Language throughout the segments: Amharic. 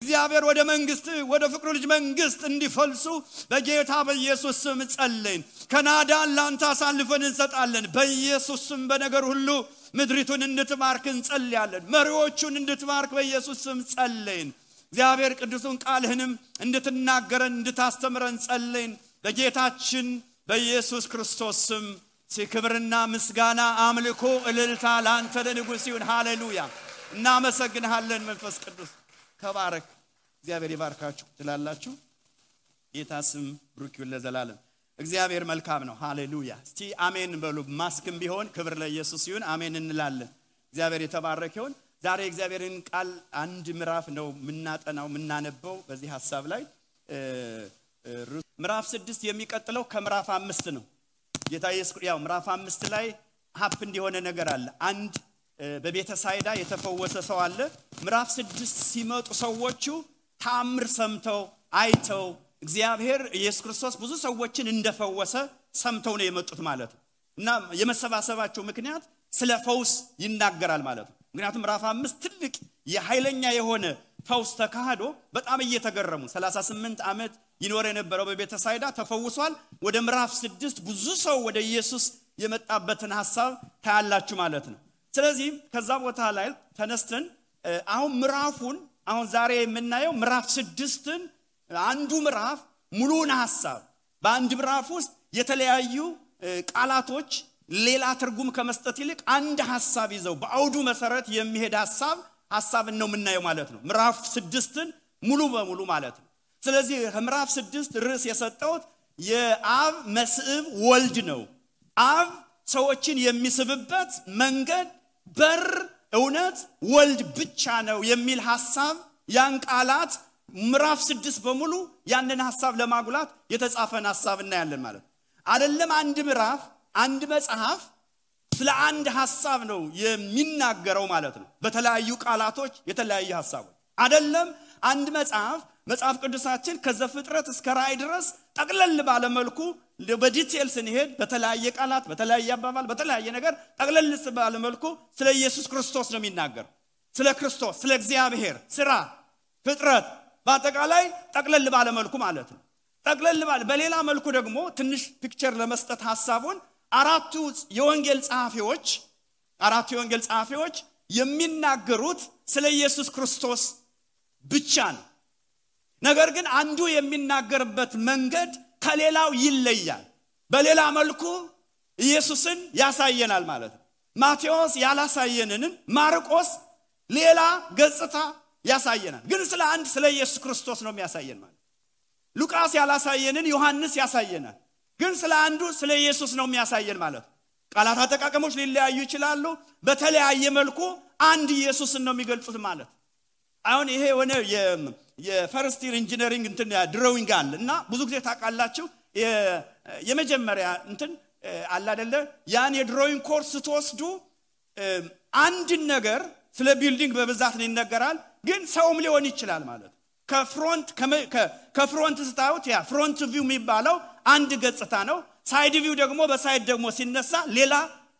እግዚአብሔር ወደ መንግስት ወደ ፍቅሩ ልጅ መንግስት እንዲፈልሱ በጌታ በኢየሱስ ስም ጸልይን ካናዳን ላንተ አሳልፈን እንሰጣለን በኢየሱስ ስም በነገር ሁሉ ምድሪቱን እንድትባርክ እንጸልያለን መሪዎቹን እንድትባርክ በኢየሱስ ስም ጸልይን እግዚአብሔር ቅዱሱን ቃልህንም እንድትናገረን እንድታስተምረን ጸልይን በጌታችን በኢየሱስ ክርስቶስ ስም ክብርና ምስጋና አምልኮ እልልታ ላንተ ለንጉስ ይሁን ሃሌሉያ እናመሰግንሃለን መንፈስ ቅዱስ ተባረክ እግዚአብሔር ይባርካችሁ ትላላችሁ ጌታ ስም ብሩክ ይሁን ለዘላለም እግዚአብሔር መልካም ነው ሃሌሉያ እስቲ አሜን በሉ ማስክም ቢሆን ክብር ለኢየሱስ ይሁን አሜን እንላለን እግዚአብሔር የተባረከ ይሁን ዛሬ እግዚአብሔርን ቃል አንድ ምዕራፍ ነው ምናጠናው ምናነበው በዚህ ሐሳብ ላይ ምዕራፍ 6 የሚቀጥለው ከምዕራፍ 5 ነው ጌታ ኢየሱስ ያው ምዕራፍ 5 ላይ ሀፕ እንዲሆነ ነገር አለ አንድ በቤተ ሳይዳ የተፈወሰ ሰው አለ ምዕራፍ 6 ሲመጡ ሰዎቹ ታምር ሰምተው አይተው እግዚአብሔር ኢየሱስ ክርስቶስ ብዙ ሰዎችን እንደፈወሰ ሰምተው ነው የመጡት ማለት ነው እና የመሰባሰባቸው ምክንያት ስለ ፈውስ ይናገራል ማለት ነው ምክንያቱም ምዕራፍ 5 ትልቅ የኃይለኛ የሆነ ፈውስ ተካሂዶ በጣም እየተገረሙ 38 ዓመት ይኖር የነበረው በቤተ ሳይዳ ተፈውሷል ወደ ምዕራፍ 6 ብዙ ሰው ወደ ኢየሱስ የመጣበትን ሐሳብ ታያላችሁ ማለት ነው ስለዚህ ከዛ ቦታ ላይ ተነስተን አሁን ምዕራፉን አሁን ዛሬ የምናየው ምዕራፍ 6ን አንዱ ምዕራፍ ሙሉን ሐሳብ በአንድ ምዕራፍ ውስጥ የተለያዩ ቃላቶች ሌላ ትርጉም ከመስጠት ይልቅ አንድ ሐሳብ ይዘው በአውዱ መሰረት የሚሄድ ሐሳብን ነው የምናየው ማለት ነው ምዕራፍ 6ን ሙሉ በሙሉ ማለት ነው ስለዚህ ምዕራፍ 6 ርዕስ የሰጠውት የአብ መስዕብ ወልድ ነው አብ ሰዎችን የሚስብበት መንገድ በር እውነት ወልድ ብቻ ነው የሚል ሐሳብ ያን ቃላት ምዕራፍ 6 በሙሉ ያንን ሐሳብ ለማጉላት የተጻፈን ሐሳብ እናያለን ማለት አይደለም አንድ ምዕራፍ አንድ መጽሐፍ ስለ አንድ ሐሳብ ነው የሚናገረው ማለት ነው በተለያዩ ቃላቶች የተለያየ ሐሳቦች አይደለም አንድ መጽሐፍ ቅዱሳችን ከዘፍጥረት እስከ ራእይ ድረስ ጠቅለል ባለ መልኩ በዲቴልስ እንሄድ በተለያየ ቃላት በተለያየ አባባል በተለያየ ነገር ጠቅለል ባለ መልኩ ስለ ኢየሱስ ክርስቶስ ነው የሚናገረው ስለ ክርስቶስ ስለ እግዚአብሔር ስራ ፍጥረት በአጠቃላይ ጠቅለል ባለ መልኩ ማለት ነው ጠቅለል ባለ በሌላ መልኩ ደግሞ ትንሽ ፒክቸር ለመስጠት ሐሳቡን አራቱ የወንጌል ጸሐፊዎች የሚናገሩት ስለ ኢየሱስ ክርስቶስ ብቻ ነው ነገር ግን አንዱ የሚናገርበት መንገድ ከሌላው ይለያል በሌላ መልኩ ኢየሱስን ያሳየናል ማለት ነው ማቴዎስ ያላሳየንን ማርቆስ ሌላ ገጽታ ያሳየናል ግን ስለ ኢየሱስ ክርስቶስ ነው የሚያሳየን ማለት ሉቃስ ያላሳየንን ዮሐንስ ያሳየናል ግን ስለ ኢየሱስ ነው የሚያሳየን ማለት ቃላት አጠቃቀሞች ሊለያዩ ይችላሉ በተለያየ መልኩ አንድ ኢየሱስን ነው የሚገልጹት ማለት አሁን ይሄ ሆነ የፈርስት ኢየር ኢንጂነሪንግ እንትን ድሮዊንግ አለ እና ብዙ ጊዜ ታቃላችሁ የመጀመሪያ እንትን አለ አይደለ ያን የድሮዊንግ ኮርስ ተወስዱ አንድ ነገር ስለ ቢልዲንግ በብዛት ይነገራል ግን ሰውም ሊሆን ይችላል ማለት ከፍሮንት ስታዩት ያ ፍሮንት ቪው የሚባለው አንድ ገጽታ ነው ሳይድ ቪው ደግሞ በሳይድ ደግሞ ሲነሳ ሌላ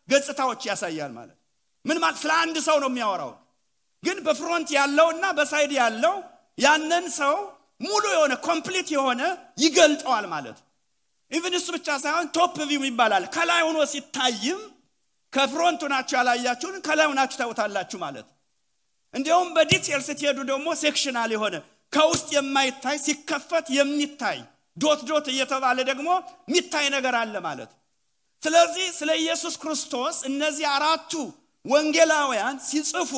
ገጽታዎች ያሳያል ማለት ምን ማለት ስለ አንድ ሰው ነው የሚያወራው ግን በፍሮንት ያለውና በሳይድ ያለው ያንን ሰው ሙሉ የሆነ ኮምፕሊት የሆነ ይገልጣል ማለት ኢቭን እሱ ብቻ ሳይሆን ቶፕ ቪው ይባላል ከላይ ሆኖ ሲታይም ከፍሮንቱ ናቸው ያላያችሁን ከላይ ሆናችሁ ታውታላችሁ ማለት እንዲያውም በዲቴል ስትሄዱ ደግሞ ሴክሽናል የሆነ ከውስጥ የማይታይ ሲከፈት የሚታይ ዶት እየተባለ ደግሞ የሚታይ ነገር አለ ማለት ስለዚህ ስለ ኢየሱስ ክርስቶስ እነዚህ አራቱ ወንጌላውያን ሲጽፉ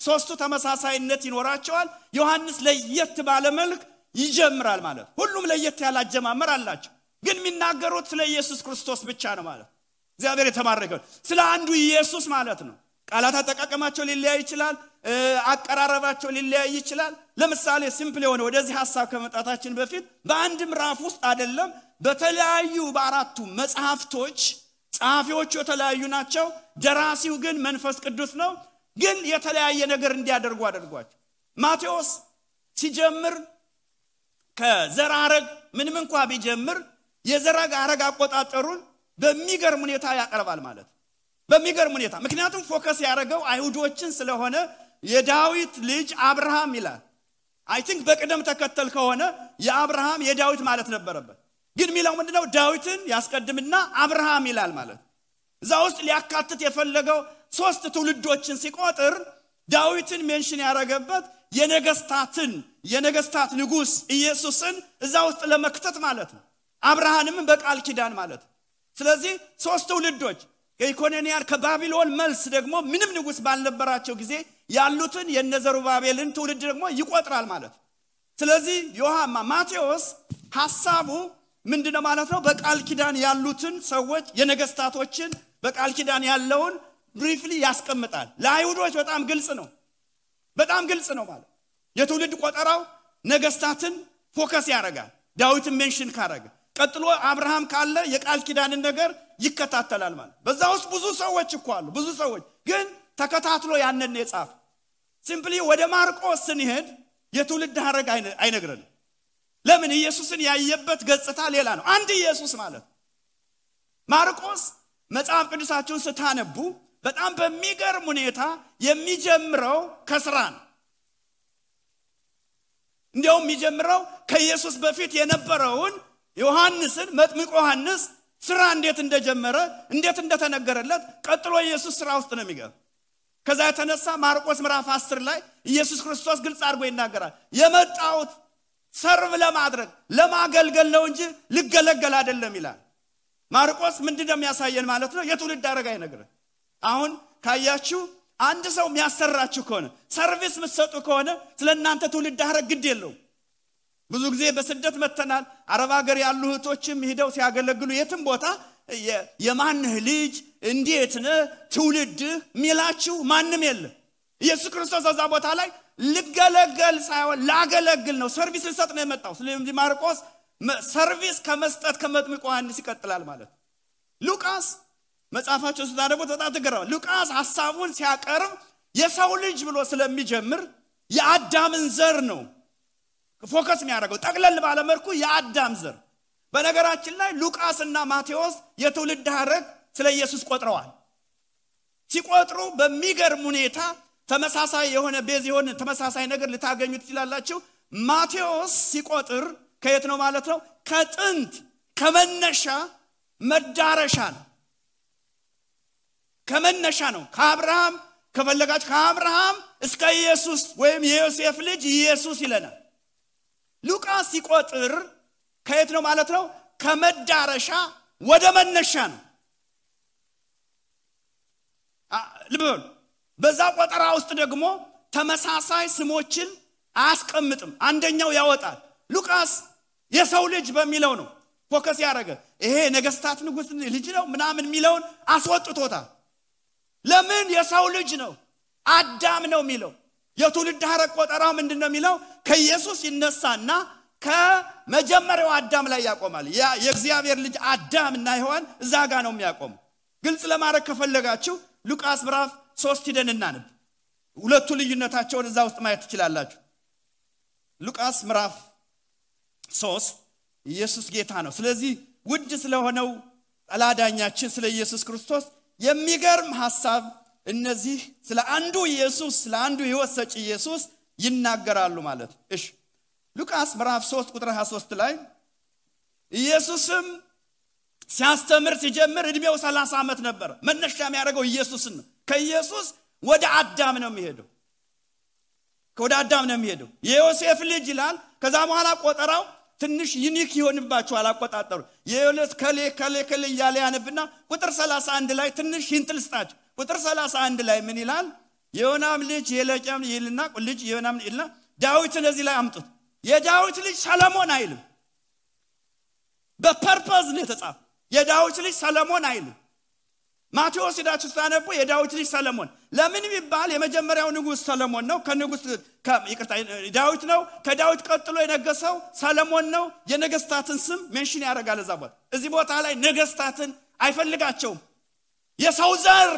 ሶስቱ ተመሳሳይነት ይኖራቸዋል ዮሐንስ ለየት ባለ መልክ ይጀምራል ማለት ሁሉም ለየት ያለ አጀማመር አላቸው ግን የሚናገሩት ስለ ኢየሱስ ክርስቶስ ብቻ ነው ማለት እግዚአብሔር የተባረከው ስለ አንዱ ኢየሱስ ማለት ነው ቃላት አጠቃቀማቸው ሊለያይ ይችላል አቀራረባቸው ሊለያይ ይችላል ለምሳሌ ሲምፕል የሆነ ወደዚህ ሐሳብ ከመጣታችን በፊት በአንድ ምዕራፍ ውስጥ አይደለም በተለያዩ በአራቱ መጽሐፍቶች ጸሐፊዎቹ የተለያዩ ናቸው ደራሲው ግን መንፈስ ቅዱስ ነው ግን የተለያየ ነገር እንዲያደርጉ አድርጓቸው ማቴዎስ ሲጀምር ከዘራረግ ምንም እንኳን ቢጀምር የዘራረግ አቆጣጠሩን በሚገርም ሁኔታ ያቀርባል ማለት በሚገርም ሁኔታ ምክንያቱም ፎከስ ያደረገው አይሁዶችን ስለሆነ የዳዊት ልጅ አብርሃም ይላል አይ ቲንክ በቅደም ተከተል ከሆነ የአብርሃም የዳዊት ማለት ነበረበት ግን ሚላው ምንድነው ዳዊትን ያስቀድምና አብርሃም ይላል ማለት እዛ ውስጥ ሊያካትት የፈለገው ሶስት ትውልዶችን ሲቆጥር ዳዊትን ሜንሽን ያረጋበት የነገስታት ንጉስ ኢየሱስን እዛ ውስጥ ለመክተት ማለት ነው አብርሃምም በቃል ኪዳን ማለት ስለዚህ ሶስት ትውልዶች ከኢኮኖሚያር ከባቢሎን መልስ ደግሞ ምንም ንጉስ ባልነበራቸው ጊዜ ያሉትን የነዘሩባቤልን ትውልድ ደግሞ ይቆጥራል ማለት ስለዚህ ማቴዎስ ሐሳቡ ምንድነው ማለት ነው በቃል ኪዳን ያሉትን ሰዎች የነገስታቶችን በቃል ኪዳን ያለውን ብሪፍሊ ያስቀምጣል ለአይሁዶች በጣም ግልጽ ነው ማለት የትውልድ ቆጠራው ነገስታትን ፎከስ ያደርጋል ዳዊትን ሜንሽን ካረገ ቀጥሎ አብርሃም ካለ የቃል ኪዳንን ነገር ይከታተላል ማለት በዛ ውስጥ ብዙ ሰዎች እኮ አሉ ብዙ ሰዎች ግን ተከታትሎ ያንን የጻፈ ሲምፕሊ ወደ ማርቆስ ስንሄድ የትውልድ ሐረግ አይነግረን ለምን ኢየሱስን ያየበት ገጽታ ሌላ ነው አንድ ኢየሱስ ማለት ማርቆስ መጽሐፍ ቅዱሳችሁን ስታነቡ በጣም በሚገርም ሁኔታ የሚጀምረው ከስራ ነው እንዲያውም የሚጀምረው ከኢየሱስ በፊት የነበረውን ዮሐንስን መጥምቁ ዮሐንስ ስራ እንዴት እንደጀመረ እንዴት እንደተነገረለት ቀጥሎ ኢየሱስ ስራ ውስጥ ነው የሚገባ ከዛ የተነሳ ማርቆስ ምዕራፍ 10 ላይ ኢየሱስ ክርስቶስ ግልጽ አድርጎ ይናገራል የመጣውት ሰርቭ ለማድረግ ለማገልገል ነው እንጂ ልገለገል አይደለም ይላል ማርቆስ ምንድነው የሚያሳየን ማለት ነው የትውልድ ሐረግ አይነግረን አሁን ካያችሁ አንድ ሰው የሚያሰራችሁ ከሆነ ሰርቪስ መስጠቱ ከሆነ ስለናንተ ትውልድ ሐረግ ግድ የለው ብዙ ጊዜ በስደት መተናል አረብ ሀገር ያሉ እህቶችም ሄደው ሲያገለግሉ የትም ቦታ የማንህ ልጅ እንዴት ነህ ትውልድ ሚላችሁ ማንንም የለም ኢየሱስ ክርስቶስ እዛ ቦታ ላይ ልገለገል ሳይሆን ላገለግል ነው ሰርቪስ ልሰጥ ነው የመጣው ስለዚህ ማርቆስ ሰርቪስ ከመስጠት ከመጥምቁ ዮሐንስ ይቀጥላል ማለት ሉቃስ መጽሐፋቸው ስታደርጉ በጣም ተገረመ ሉቃስ ሐሳቡን ሲያቀርብ የሰው ልጅ ብሎ ስለሚጀምር የአዳምን ዘር ነው ፎከስ የሚያደርገው ጠቅለል ባለ መልኩ የአዳም ዘር በነገራችን ላይ ሉቃስና ማቴዎስ የትውልድ ሐረግ ስለ ኢየሱስ ቆጥረዋል ሲቆጥሩ በሚገርም ሁኔታ ተመሳሳይ የሆነ ቤዝ የሆነ ተመሳሳይ ነገር ልታገኙ ትችላላችሁ ማቴዎስ ሲቆጥር ከየት ነው ማለት ነው ከጥንት ከመነሻ መዳረሻ ነው ከመነሻ ነው ከአብርሃም ከፈለጋችሁ ከአብርሃም እስከ ኢየሱስ ወይም የዮሴፍ ልጅ ኢየሱስ ይለናል ሉቃስ ሲቆጥር ከየት ነው ማለት ነው ከመዳረሻ ወደ መነሻ ነው ልበል በዛ ቆጠራ ውስጥ ደግሞ ተመሳሳይ ስሞችን አያስቀምጥም አንደኛው ያወጣል ሉቃስ የሰው ልጅ በሚለው ነው ፎከስ ያደረገ ይሄ ነገስታት ንጉስ ልጅ ነው ምናምን ሚለውን አስወጥቶታል ለምን የሰው ልጅ ነው አዳም ነው ሚለው የትውልድ ሐረግ ቆጠራው ምንድነው ሚለው ከኢየሱስ ይነሳና ከመጀመሪያው አዳም ላይ ያቆማል የእግዚአብሔር ልጅ አዳምና ሔዋን እዛ ጋር ነው የሚያቆም ግልጽ ለማድረግ ከፈለጋችሁ ሉቃስ ምዕራፍ 3 ሄደን እናንብ ሁለቱ ልዩነታቸውን እዛ ውስጥ ማየት ትችላላችሁ ሉቃስ ምዕራፍ 3 ኢየሱስ ጌታ ነው ስለዚህ ውድ ስለሆነው አላዳኛችን ስለ ኢየሱስ ክርስቶስ የሚገርም ሐሳብ እነዚህ ስለ አንዱ ኢየሱስ ስለ አንዱ ሕይወት ሰጪ ኢየሱስ ይናገራሉ ማለት እሺ ሉቃስ ምዕራፍ 3 ቁጥር 23 ላይ ኢየሱስም ሲያስተምር ሲጀምር እድሜው 30 ዓመት ነበር መነሻ የሚያደርገው ኢየሱስን ነው ከኢየሱስ ወደ አዳም ነው የሚሄደው ወደ አዳም ነው የሚሄደው የዮሴፍ ልጅ ይላል ከዛ በኋላ ቆጠራው ትንሽ ዩኒክ ይሆንባቸዋል አቆጣጠሩ የዮሴፍ ከሌ ያለ ያነብና ቁጥር 31 ላይ ትንሽ hintlስጣች ቁጥር 31 ላይ ምን ይላል የዮናም ልጅ የለቀም ይልና ልጅ የዮናም ይልና ዳዊትን እዚህ ላይ አምጡት የዳዊት ልጅ ሰለሞን አይልም በፐርፐዝ ነው የተጻፈው የዳዊት ልጅ ሰለሞን አይልም ማቴዎስ ሄዳችሁ ታነቡ የዳዊት ልጅ ሰለሞን ለምን ቢባል የመጀመሪያው ንጉስ ሰለሞን ነው ከንጉስ ይቅርታ ዳዊት ነው ከዳዊት ቀጥሎ የነገሰው ሰለሞን ነው የነገስታትን ስም ሜንሽን ያደርጋል እዛባት እዚህ ቦታ ላይ ነገስታትን አይፈልጋቸውም የሰው ዘር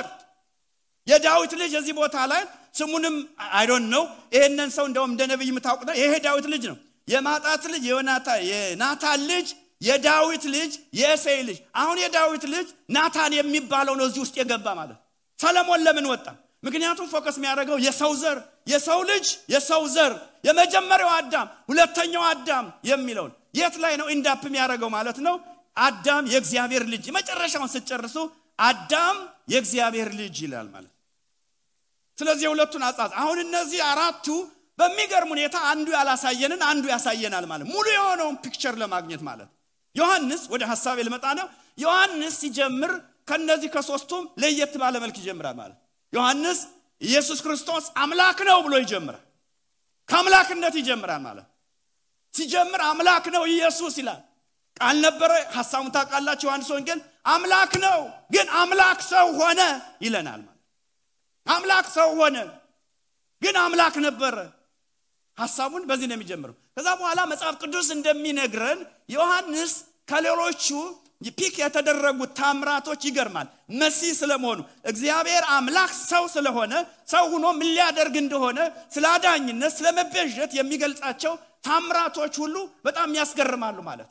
የዳዊት ልጅ እዚህ ቦታ ላይ ስሙንም አይ ዶንት ኖ ይሄንን ሰው እንደውም እንደ ነብይ የምታውቁት ይሄ ዳዊት ልጅ ነው የማጣት ልጅ የናታን ልጅ የዳዊት ልጅ የእሴይ ልጅ አሁን የዳዊት ልጅ ናታን የሚባለው ነው እዚህ ውስጥ የገባ ማለት ሰለሞን ለምን ወጣ ምክንያቱም ፎከስ የሚያደርገው የሰው ዘር የሰው ልጅ የሰው ዘር የመጀመሪያው አዳም ሁለተኛው አዳም የሚለው የት ላይ ነው ኢንዳፕ የሚያደርገው ማለት ነው አዳም የእግዚአብሔር ልጅ መጨረሻውን ሲጨርሱ አዳም የእግዚአብሔር ልጅ ይላል ማለት ስለዚህ ሁለቱን አጻጽ አሁን እነዚህ አራቱ በሚገርም ሁኔታ አንዱ ያላሳየንን አንዱ ያሳየናል ማለት ሙሉ የሆነውን ፒክቸር ለማግኘት ማለት ዮሐንስ ወደ ሐሳቤ ልመጣ ነው ዮሐንስ ሲጀምር ከነዚህ ከሶስቱም ለየት ባለ መልክ ይጀምራል ማለት ዮሐንስ ኢየሱስ ክርስቶስ አምላክ ነው ብሎ ይጀምራል ከአምላክነት ይጀምራል ማለት ሲጀምር አምላክ ነው ኢየሱስ ይላል ቃል ነበረ ሐሳቡን ታውቃላችሁ ዮሐንስ ወንጌል አምላክ ነው ግን አምላክ ሰው ሆነ ይለናል ማለት አምላክ ሰው ሆነ ግን አምላክ ነበር ሐሳቡን በዚህ ነው የሚጀምረው ከዛ በኋላ መጽሐፍ ቅዱስ እንደሚነግረን ዮሐንስ ከሌሎቹ ፒክ የተደረጉት ታምራቶች ይገርማል መሲህ ስለመሆኑ እግዚአብሔር አምላክ ሰው ስለሆነ ሰው ሆኖ ምን ሊያደርግ እንደሆነ ስላዳኝነት ስለመቤዠት የሚገልጻቸው ታምራቶች ሁሉ በጣም ያስገርማሉ ማለት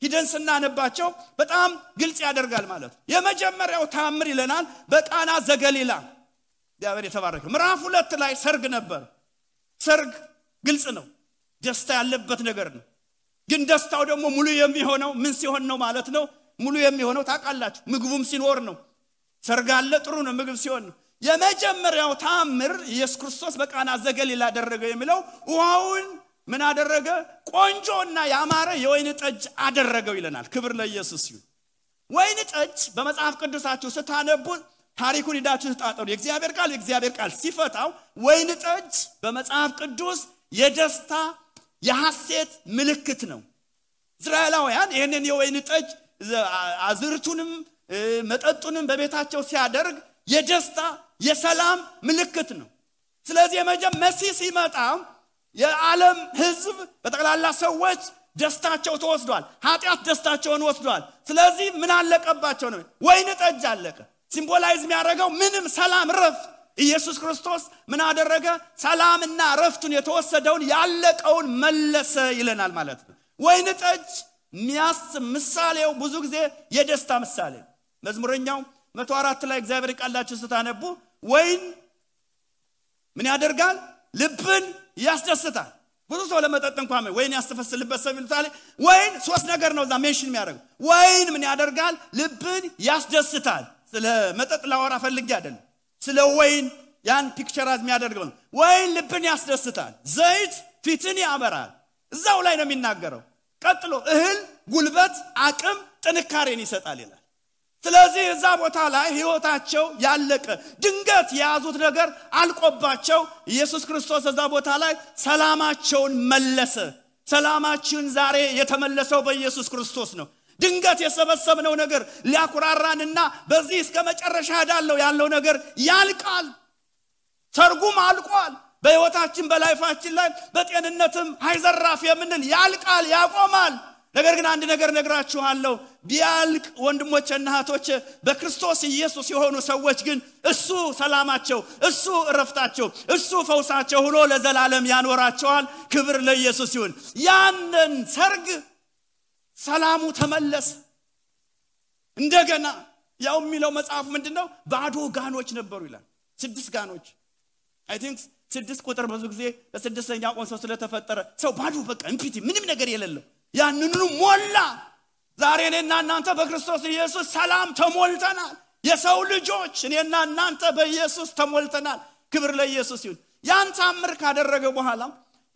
ሂደን ስናነባቸው በጣም ግልጽ ያደርጋል ማለት የመጀመሪያው ታምር ይለናል በቃና ዘገሊላ እግዚአብሔር የተባረከ ምዕራፍ 2 ላይ ሰርግ ነበር ሰርግ ግልጽ ነው ደስታ ያለበት ነገር ነው ግን ደስታው ደግሞ ሙሉ የሚሆነው ምን ሲሆን ነው ማለት ነው ሙሉ የሚሆነው ታውቃላችሁ ምግቡም ሲኖር ነው ሰርግ አለ ጥሩ ነው ምግብ ሲሆን ነው የመጀመሪያው ታምር ኢየሱስ ክርስቶስ በቃና ዘገሊላ አደረገ የሚለው ውሃውን ምን አደረገ ቆንጆና ያማረ የወይን ጠጅ አደረገው ይለናል ክብር ለኢየሱስ ይሁን ወይን ጠጅ በመጽሐፍ ቅዱሳችሁ ስታነቡ ታሪኩን ሄዳችሁ ተጣጣሩ የእግዚአብሔር ቃል ሲፈታው ወይን ጠጅ በመጽሐፍ ቅዱስ የደስታ የሐሴት ምልክት ነው እስራኤላውያን ይሄንን የወይን ጠጅ አዝርቱንም መጠጡንም በቤታቸው ሲያደርግ የደስታ የሰላም ምልክት ነው ስለዚህ መሲህ ሲመጣ የዓለም ህዝብ በጠቅላላ ሰዎች ደስታቸው ተወስዷል ኃጢያት ደስታቸውን ወስዷል ስለዚህ ምን አለቀባቸው ነው ወይን ጠጅ አለቀ ሲምቦላይዝ የሚያደርገው ምንም ሰላም ረፍት ኢየሱስ ክርስቶስ ምን አደረገ ሰላምና ረፍቱን የተወሰደውን ያለቀውን መለሰ ይለናል ማለት ነው ወይን ጠጅ ምሳሌው ብዙ ጊዜ የደስታ ምሳሌ መዝሙረኛው 104 ላይ እግዚአብሔር ቃላችሁ ስታነቡ ወይን ምን ያደርጋል ልብን ያስደስታል ብዙ ሰው ለመጠጥ እንኳን ወይን ያስተፈስልበት ሰው ይልታል ወይን ሶስት ነገር ነው እዛ ሜንሽን የሚያደርገው ወይን ምን ያደርጋል ልብን ያስደስታል ስለ መጠጥ ላወራ ፈልጌ አይደለም ስለ ወይን ያን ፒክቸራዝ የሚያደርገው ወይን ልብን ያስደስታል ዘይት ፊትን ያበራል እዛው ላይ ነው የሚናገረው ቀጥሎ እህል ጉልበት አቅም ጥንካሬን ይሰጣል ይላል ስለዚህ እዛ ቦታ ላይ ህይወታቸው ያለቀ ድንገት ያዙት ነገር አልቆባቸው ኢየሱስ ክርስቶስ እዛ ቦታ ላይ ሰላማቸውን መለሰ ሰላማችን ዛሬ የተመለሰው በኢየሱስ ክርስቶስ ነው ድንገት የሰበሰብነው ነገር ሊያኩራራንና በዚህ እስከ መጨረሻ ያለው ነገር ያልቃል ተርጉም አልቋል በህይወታችን በላይፋችን ላይ በጤንነትም ሃይዘራፍ የምንል ያልቃል ያቆማል ነገር ግን አንድ ነገር ነግራችኋለሁ ቢያልቅ ወንድሞችና እህቶች በክርስቶስ ኢየሱስ የሆኑ ሰዎች ግን እሱ ሰላማቸው እሱ እረፍታቸው እሱ ፈውሳቸው ሆኖ ለዘላለም ያኖራቸዋል ክብር ለኢየሱስ ይሁን ያንን ሰርግ ሰላሙ ተመለሰ እንደገና ያው የሚለው መጽሐፍ ምንድነው ባዶ ጋኖች ነበሩ ይላል 6 ጋኖች አይ ቲንክ 6 ቁጥር ብዙ ጊዜ በስድስተኛው ቀን ሰው ስለተፈጠረ ሰው ባዶ በቃ እንፒቲ ምንም ነገር የሌለው ያንኑ ሞላ ዛሬ እኔና እናንተ በክርስቶስ ኢየሱስ ሰላም ተሞልተናል የሰው ልጆች እኔና እናንተ በኢየሱስ ተሞልተናል ክብር ለኢየሱስ ይሁን ያን ታምር ካደረገ በኋላ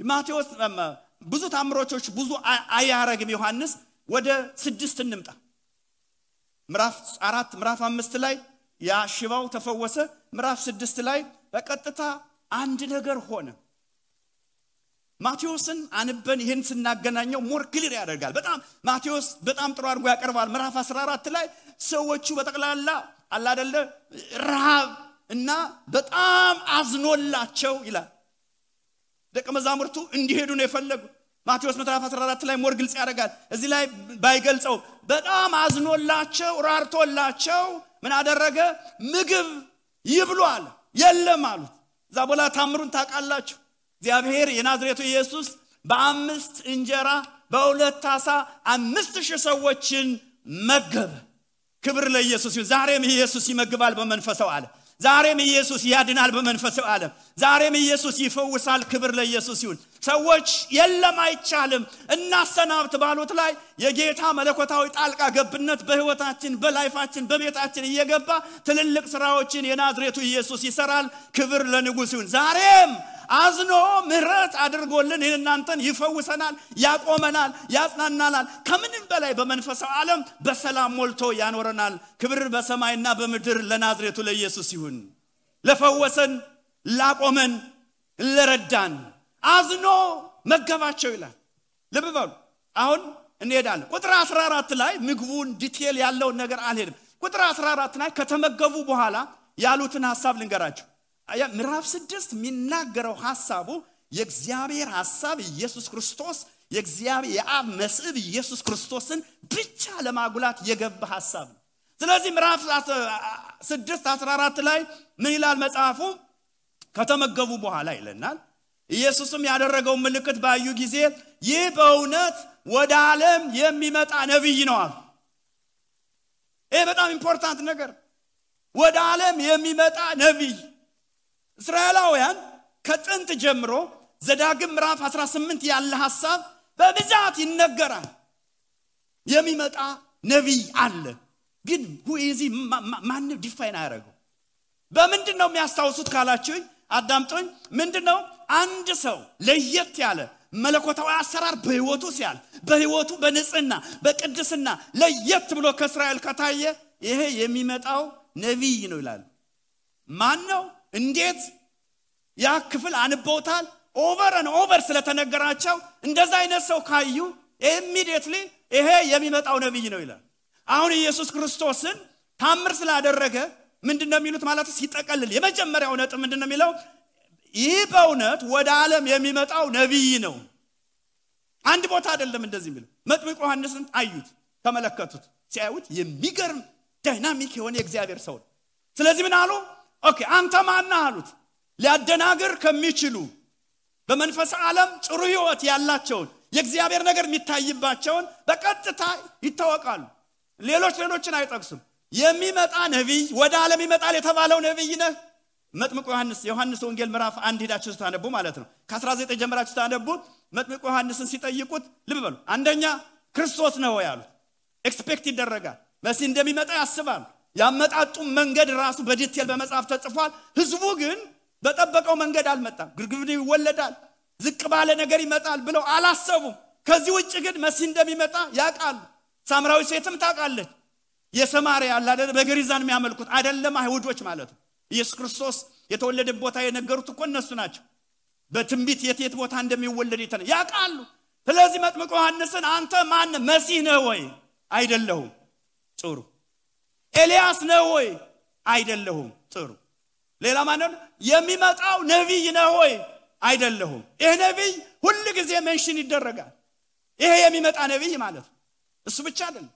ማቴዎስ ብዙ ታምሮች ብዙ አያረግም ዮሐንስ ወደ 6 እንምጣ ምዕራፍ 4 ምዕራፍ 5 ላይ ያ ሽባው ተፈወሰ ምዕራፍ 6 ላይ በቀጥታ አንድ ነገር ሆነ ማቴዎስን አንበን ይሄን ስናገናኘው ሞር ክሊር ያደርጋል በጣም ማቴዎስ በጣም ጥሩ አድርጎ ያቀርባል ምዕራፍ 14 ላይ ሰዎቹ በተቀላላ አላ አይደለ ረሃብ እና በጣም አዝኖላቸው ይላል ደቀ መዛሙርቱ እንዲሄዱ ነው የፈለጉ ማቴዎስ ምዕራፍ 14 ላይ ሞር ግልጽ ያደርጋል እዚህ ላይ ባይገልጸው በጣም አዝኖላቸው ራርቶላቸው ምን አደረገ ምግብ ይብሏል የለም አሉት ዛቦላ ታምሩን ታውቃላችሁ እግዚአብሔር የናዝሬቱ ኢየሱስ በ5 እንጀራ በ2 ዓሣ 5000 ሰዎችን መገበ ክብር ለኢየሱስ ይሁን ዛሬም ኢየሱስ ይመግባል በመንፈሳው ዓለም ዛሬም ኢየሱስ ያድናል በመንፈሳዊ ዓለም ዛሬም ኢየሱስ ይፈውሳል ክብር ለኢየሱስ ይሁን ሰዎች የለም አይቻልም እናሰናብት ባሉት ላይ የጌታ መለኮታዊ ጣልቃ ገብነት በህይወታችን በላይፋችን በቤታችን እየገባ ትልልቅ ስራዎችን የናዝሬቱ ኢየሱስ ይሰራል ክብር ለንጉስ ይሁን ዛሬም አዝኖ ምህረት አድርጎልን እናንተን ይፈውሰናል ያቆመናል ያጽናናናል ከምንም በላይ በመንፈሳዊ ዓለም በሰላም ሞልቶ ያኖረናል ክብር በሰማይና በምድር ለናዝሬቱ ለኢየሱስ ይሁን ለፈወሰን ላቆመን ለረዳን አዝኖ መገባቸው ይላል ልብ በሉ አሁን እንሄዳለን ቁጥር 14 ላይ ምግቡን ዲቴል ያለው ነገር አልሄድም ቁጥር 14 ላይ ከተመገቡ በኋላ ያሉትን ሐሳብ ልንገራችሁ ምዕራፍ 6 የሚናገረው ሐሳቡ የእግዚአብሔር ሐሳብ ኢየሱስ ክርስቶስ የእግዚአብሔር የአብ መስዕብ ኢየሱስ ክርስቶስን ብቻ ለማጉላት የገባ ሐሳብ ነው ስለዚህ ምዕራፍ 6 14 ላይ ምን ይላል መጽሐፉ ከተመገቡ በኋላ ይለናል ኢየሱስም ያደረገው ምልክት ባዩ ጊዜ ይህ በእውነት ወደ ዓለም የሚመጣ ነብይ ነው አሉ ይሄ በጣም ኢምፖርታንት ነገር ወደ ዓለም የሚመጣ ነብይ እስራኤላውያን ከጥንት ጀምሮ ዘዳግም ምዕራፍ 18 ያለ ሐሳብ በብዛት ይነገራል የሚመጣ ነብይ አለ ግን ሁይዚ ማን ዲፋይን አያረጋው በምንድነው የሚያስታውሱት ካላችሁኝ አዳምጡኝ ምንድነው አንድ ሰው ለየት ያለ መለኮታዊ አሰራር በህይወቱ ሲያል በህይወቱ በንጽህና በቅድስና ለየት ብሎ ከእስራኤል ከታየ ይሄ የሚመጣው ነብይ ነው ይላል ማን ነው እንዴት ያ ክፍል አንቦታል ኦቨር ስለተነገራቸው እንደዛ አይነት ሰው ካዩ ኢሚዲየትሊ ይሄ የሚመጣው ነብይ ነው ይላል አሁን ኢየሱስ ክርስቶስን ታምር ስላደረገ ምንድነው የሚሉት ማለት ሲጠቀልል የመጀመሪያው ነጥብ ምንድነው የሚለው ይህ በእውነት ወደ ዓለም የሚመጣው ነብይ ነው አንድ ቦታ አይደለም እንደዚህ የሚለው መጥምቁ ዮሐንስን አዩት ተመለከቱት ሲያዩት የሚገርም ዳይናሚክ የሆነ የእግዚአብሔር ሰው ስለዚህ ምን አሉ ኦኬ አንተ ማን ነህ አሉት ሊያደናግር ከሚችሉ በመንፈስ ዓለም ጥሩ ህይወት ያላቸው የእግዚአብሔር ነገር የሚታይባቸውን በቀጥታ ይታወቃሉ ሌሎችን አይጠቅሱም የሚመጣ ነብይ ወደ ዓለም ይመጣል የተባለው ነብይ ነህ መጥምቁ ዮሐንስ ወንጌል ምዕራፍ 1 ሄዳችሁ ታነቡ ማለት ነው ከ19 ጀምራችሁ ታነቡ መጥምቁ ዮሐንስን ሲጠይቁት ልብ በሉ አንደኛ ክርስቶስ ነው ያሉት ኤክስፔክት ይደረጋል መሲ እንደሚመጣ ያስባል ያመጣጡ መንገድ ራሱ በዲቴል በመጽሐፍ ተጽፏል ህዝቡ ግን በጠበቀው መንገድ አልመጣም ግርግር ይወለዳል ዝቅ ባለ ነገር ይመጣል ብለው አላሰቡም ከዚህ ውጭ ግን መሲ እንደሚመጣ ያቃሉ ሳምራዊ ሴትም ታቃለች የሰማሪያ አላደ በገሪዛን የሚያመልኩት አይደለም አይሁዶች ማለት ነው ኢየሱስ ክርስቶስ የተወለደ ቦታ የነገሩት እኮ እነሱ ናቸው በትንቢት የት ቦታ እንደሚወለድ ያቃሉ ስለዚህ መጥምቁ ዮሐንስን አንተ ማን መሲህ ነህ ወይ አይደለሁም ጥሩ ኤልያስ ነህ ወይ አይደለሁም ጥሩ ሌላ ማን ነው የሚመጣው ነብይ ነህ ወይ አይደለሁም ይሄ ነብይ ሁሉ ጊዜ ሜንሽን ይደረጋል ይሄ የሚመጣ ነብይ ማለት እሱ ብቻ አይደለም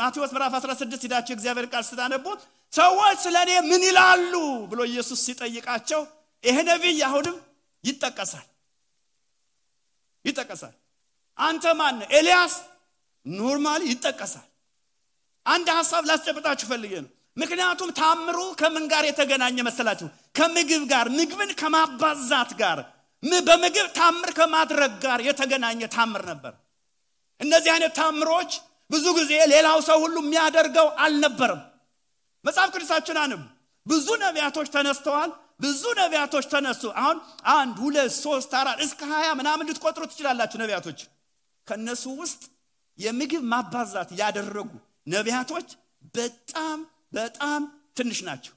ማቴዎስ ምዕራፍ 16 ሄዳችሁ እግዚአብሔር ቃል ስታነቡ ሰዎች ስለኔ ምን ይላሉ ብሎ ኢየሱስ ሲጠይቃቸው ይሄ ነብይ አሁንም ይጠቀሳል አንተ ማን ኤልያስ ኖርማሊ ይጠቀሳል አንድ ሐሳብ ላስጨብጣችሁ ፈልጌ ነው ምክንያቱም ታምሩ ከምን ጋር የተገናኘ መሰላችሁ ከምግብ ጋር ምግብን ከማባዛት ጋር በምግብ ታምር ከማድረግ ጋር የተገናኘ ታምር ነበር እነዚህ አይነት ታምሮች ብዙ ጊዜ ሌላው ሰው ሁሉ የሚያደርገው አልነበረም መጽሐፍ ቅዱሳችን አንብ ብዙ ነቢያቶች ተነስተዋል ብዙ ነቢያቶች ተነሱ አሁን 1 2 3 4 እስከ 20 ምናምን ልትቆጥሩ ትችላላችሁ ነቢያቶች ከነሱ ውስጥ የምግብ ማባዛት ያደረጉ ነቢያቶች በጣም ትንሽ ናቸው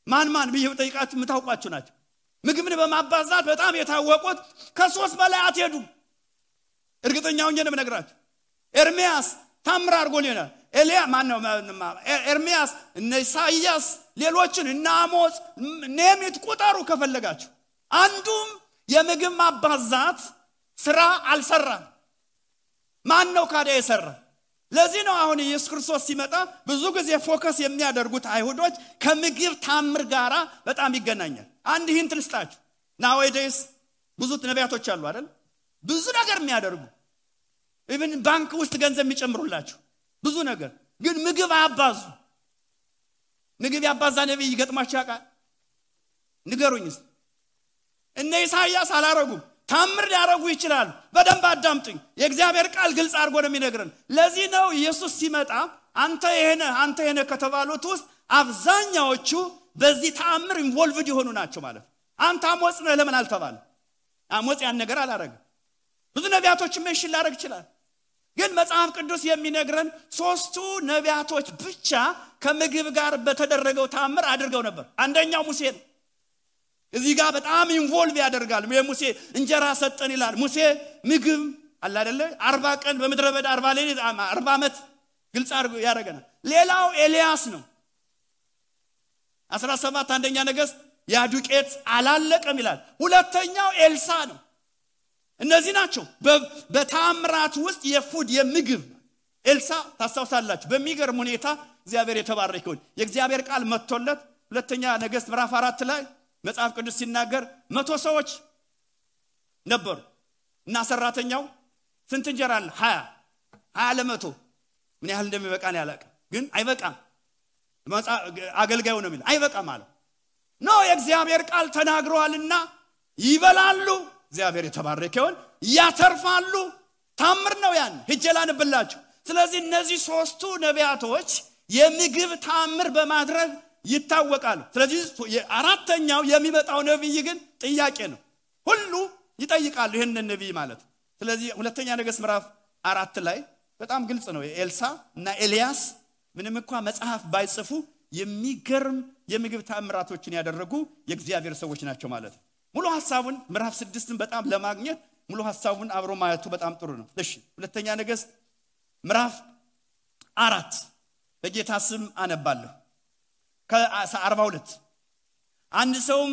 ማን ቢዩ ጠይቃችሁ ምታውቋቸው ናቸው ምግብን በማባዛት በጣም የታወቁት ከ3 በላይ አትሄዱ እርግጠኛው ነው የምነግራችሁ ኤርሚያስ ታምር አድርጎልናል ኤልያ ማነው ኤርሚያስ ኢሳይያስ ሌሎችን እና አሞጽ ነሚት ቁጠሩ ከፈለጋችሁ አንዱም የምግብ ማባዛት ስራ አልሰራም ማን ነው ካዲያ የሰራ ለዚህ ነው አሁን ኢየሱስ ክርስቶስ ሲመጣ ብዙ ጊዜ ፎከስ የሚያደርጉት አይሁዶች ከምግብ ታምር ጋራ በጣም ይገናኛል አንድ ሂንት ልስጣችሁ nowadays ብዙ ነቢያቶች አሉ አይደል ብዙ ነገር የሚያደርጉ ኢቭን ባንክ ውስጥ ገንዘብ የሚጨምሩላችሁ ብዙ ነገር ግን ምግብ አባዙ ንግብ ያባዛ ነብይ ይገጥማችሁ ያውቃል? ንገሩኝስ። እነ ኢሳይያስ አላረጉም። ታምር ሊያረጉ ይችላል። በደንብ አዳምጡኝ። የእግዚአብሔር ቃል ግልጽ አድርጎ ነው የሚነግረን። ለዚህ ነው ኢየሱስ ሲመጣ አንተ የሄነ ከተባሉት ውስጥ አብዛኛዎቹ በዚህ ተአምር ኢንቮልቭድ የሆኑ ናቸው ማለት። አንተ አሞጽ ነህ ለምን አልተባለ? አሞጽ ያን ነገር አላረገም። ብዙ ነቢያቶች ሜንሽን ላደርግ ይችላል። ግን መጽሐፍ ቅዱስ የሚነግረን ሶስቱ ነቢያቶች ብቻ ከምግብ ጋር በተደረገው ተአምር አድርገው ነበር። አንደኛው ሙሴ ነው። እዚህ ጋር በጣም ኢንቮልቭ ያደርጋል። ሙሴ እንጀራ ሰጠን ይላል። ሙሴ ምግብ አለ አይደለ? 40 ቀን በመድረ በዳ 40 ሌሊት 40 ዓመት ግልጽ አድርጎ ያደርገናል። ሌላው ኤልያስ ነው። 17 አንደኛ ነገሥት ያዱቄት አላለቀም ይላል። ሁለተኛው ኤልሳ ነው። እነዚህ ናቸው በተአምራት ውስጥ የፉድ የምግብ። ኤልሳ ታስታውሳላችሁ በሚገርም ሁኔታ እግዚአብሔር የተባረከ ይሁን የእግዚአብሔር ቃል መጥቶለት ሁለተኛ ነገሥት ምዕራፍ 4 ላይ መጽሐፍ ቅዱስ ሲናገር 100 ሰዎች ነበሩ እና ሰራተኛው ስንት እንጀራ አለ? 20 ለመቶ ምን ያህል እንደሚበቃን ያላቀ ግን አይበቃም። አገልጋዩ ነው የሚል አይበቃም ማለት ነው። የእግዚአብሔር ቃል ተናግሯልና ይበላሉ። እግዚአብሔር የተባረከ ይሁን ያተርፋሉ። ታምር ነው ያን ሄጀላንብላችሁ። ስለዚህ እነዚህ ሶስቱ ነቢያቶች የምግብ ታምር በማድረግ ይታወቃሉ። ስለዚህ አራተኛው የሚመጣው ነብይ ግን ጥያቄ ነው። ሁሉ ይጠይቃሉ ይሄንን ነብይ ማለት። ስለዚህ ሁለተኛ ነገሥት ምዕራፍ 4 ላይ በጣም ግልጽ ነው። ኤልሳ እና ኤልያስ ምንም እንኳን መጽሐፍ ባይጽፉ የሚገርም የምግብ ታምራቶችን ያደረጉ የእግዚአብሔር ሰዎች ናቸው ማለት ነው። ሙሉ ሐሳቡን ምዕራፍ 6ን በጣም ለማግኘት ሙሉ ሐሳቡን አብሮ ማየቱ በጣም ጥሩ ነው። እሺ ሁለተኛ ነገሥት ምዕራፍ 4 በጌታ ስም አነባለሁ። ከ42 አንድ ሰውም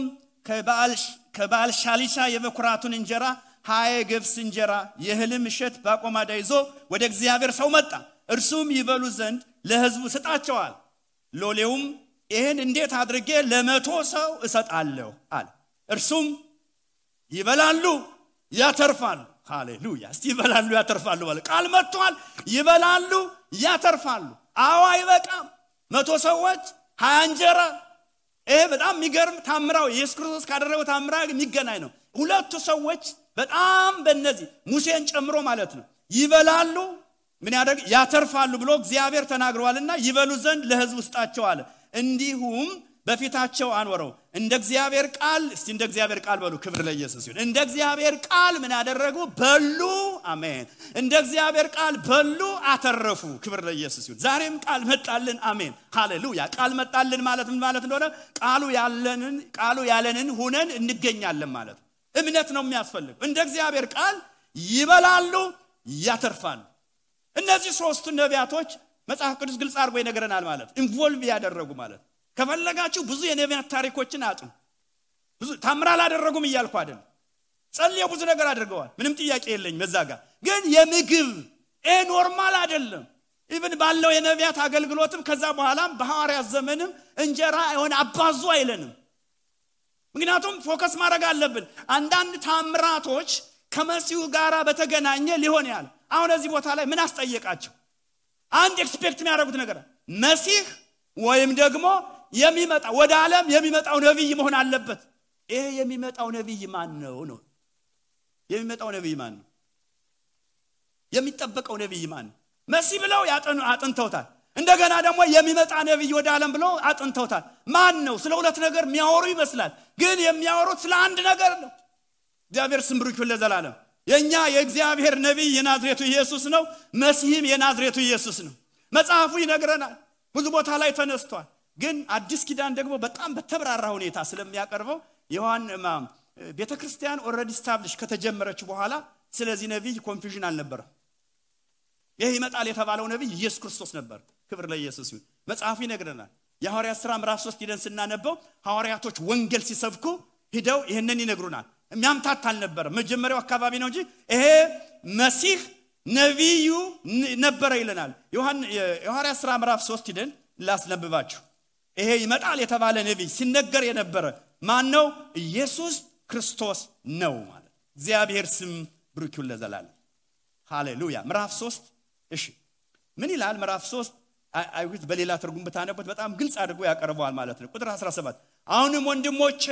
ከባል ሻሊሻ የበኩራቱን እንጀራ 20 ገብስ እንጀራ የህልም እሸት ባቆማዳ ይዞ ወደ እግዚአብሔር ሰው መጣ። እርሱም ይበሉ ዘንድ ለሕዝቡ ስጣቸዋል። ሎሌውም ይሄን እንዴት አድርጌ ለ100 ሰው እሰጣለሁ አለ። እርሱም ይበላሉ ያተርፋሉ። ሃሌሉያ! እስቲ ይበላሉ ያተርፋሉ ማለት ቃል መጥቷል። ይበላሉ ያተርፋሉ። አዎ አይበቃም። 100 ሰዎች 20 እንጀራ። ይሄ በጣም የሚገርም ታምራው ኢየሱስ ክርስቶስ ካደረገው ታምራ የሚገናኝ ነው። ሁለቱ ሰዎች በጣም በእነዚህ ሙሴን ጨምሮ ማለት ነው ይበላሉ ምን ያደርግ ያተርፋሉ ብሎ እግዚአብሔር ተናግሯልና ይበሉ ዘንድ ለሕዝቡ ስጣቸው አለ። እንዲሁም በፊታቸው አንወረው እንደ እግዚአብሔር ቃል። እስቲ እንደ እግዚአብሔር ቃል በሉ። ክብር ለኢየሱስ ይሁን። እንደ እግዚአብሔር ቃል ምን ያደረጉ በሉ። አሜን። እንደ እግዚአብሔር ቃል በሉ አተረፉ። ክብር ለኢየሱስ ይሁን። ዛሬም ቃል መጣልን። አሜን ሃሌሉያ። ቃል መጣልን ማለት ምን ማለት እንደሆነ ቃሉ ያለንን ሆነን እንገኛለን ማለት። እምነት ነው የሚያስፈልግ። እንደ እግዚአብሔር ቃል ይበላሉ ያተርፋሉ። እነዚህ ሶስቱ ነቢያቶች መጽሐፍ ቅዱስ ግልጽ አድርጎ ይነግረናል ማለት ኢንቮልቭ ያደረጉ ማለት። ከፈለጋችሁ ብዙ የነቢያት ታሪኮችን አጥኑ። ብዙ ታምራ አላደረጉም እያልኩ አይደለም። ጸልየው ብዙ ነገር አድርገዋል። ምንም ጥያቄ የለኝም በዛ ጋር። ግን የምግብ ኖርማል አይደለም። ኢቭን ባለው የነቢያት አገልግሎትም ከዛ በኋላም በሐዋርያት ዘመንም እንጀራ የሆነ አባዙ አይለንም። ምክንያቱም ፎከስ ማድረግ አለብን። አንዳንድ ታምራቶች ከመሲሁ ጋራ በተገናኘ ሊሆን ያለ አሁን እዚህ ቦታ ላይ ምን አስጠየቃቸው? አንድ ኤክስፔክት የሚያደርጉት ነገር መሲህ ወይም ደግሞ የሚመጣ ወደ ዓለም የሚመጣው ነብይ መሆን አለበት። ይሄ የሚመጣው ነብይ ማን ነው ነው? የሚመጣው ነብይ ማን ነው? የሚጠበቀው ነብይ ማን ነው? መሲህ ብለው አጥንተውታል። እንደገና ደግሞ የሚመጣ ነብይ ወደ ዓለም ብለው አጥንተውታል። ማን ነው? ስለ ሁለት ነገር የሚያወሩ ይመስላል፣ ግን የሚያወሩት ስለ አንድ ነገር ነው። እግዚአብሔር ስም ብሩክ ይሁን ለዘላለም። የኛ የእግዚአብሔር ነብይ የናዝሬቱ ኢየሱስ ነው። መሲህም የናዝሬቱ ኢየሱስ ነው። መጽሐፉ ይነግረናል። ብዙ ቦታ ላይ ተነስቷል። ግን አዲስ ኪዳን ደግሞ በጣም በተብራራ ሁኔታ ስለሚያቀርበው ቤተክርስቲያን ኦሬዲ ስታብሊሽ ከተጀመረች በኋላ ስለዚህ ነብይ ኮንፊውዥን አልነበረም። ይሄ ይመጣል የተባለው ነብይ ኢየሱስ ክርስቶስ ነበር። ክብር ለኢየሱስ ይሁን። መጽሐፉ ይነግረናል። የሐዋርያት ሥራ ምዕራፍ 3 ሄደን ስናነበው ሐዋርያቶች ወንጌል ሲሰብኩ ሄደው ይሄንን ይነግሩናል። የሚያምታታ አልነበረም። መጀመሪያው አካባቢ ነው እንጂ ይሄ መሲህ ነብዩ ነበር ይለናል። የሐዋርያት ሥራ ምዕራፍ 3 ሄደን ላስነብባችሁ። ይሄ ይመጣል የተባለ ነብይ ሲነገር የነበረ ማን ነው? ኢየሱስ ክርስቶስ ነው ማለት። እግዚአብሔር ስም ብሩክ ይሁን ለዘላለም። ሃሌሉያ። ምዕራፍ 3 እሺ ምን ይላል? ምዕራፍ 3 አይሁት በሌላ ትርጉም በታነበት በጣም ግልጽ አድርጎ ያቀርበዋል ማለት ነው። ቁጥር 17 አሁንም ወንድሞቼ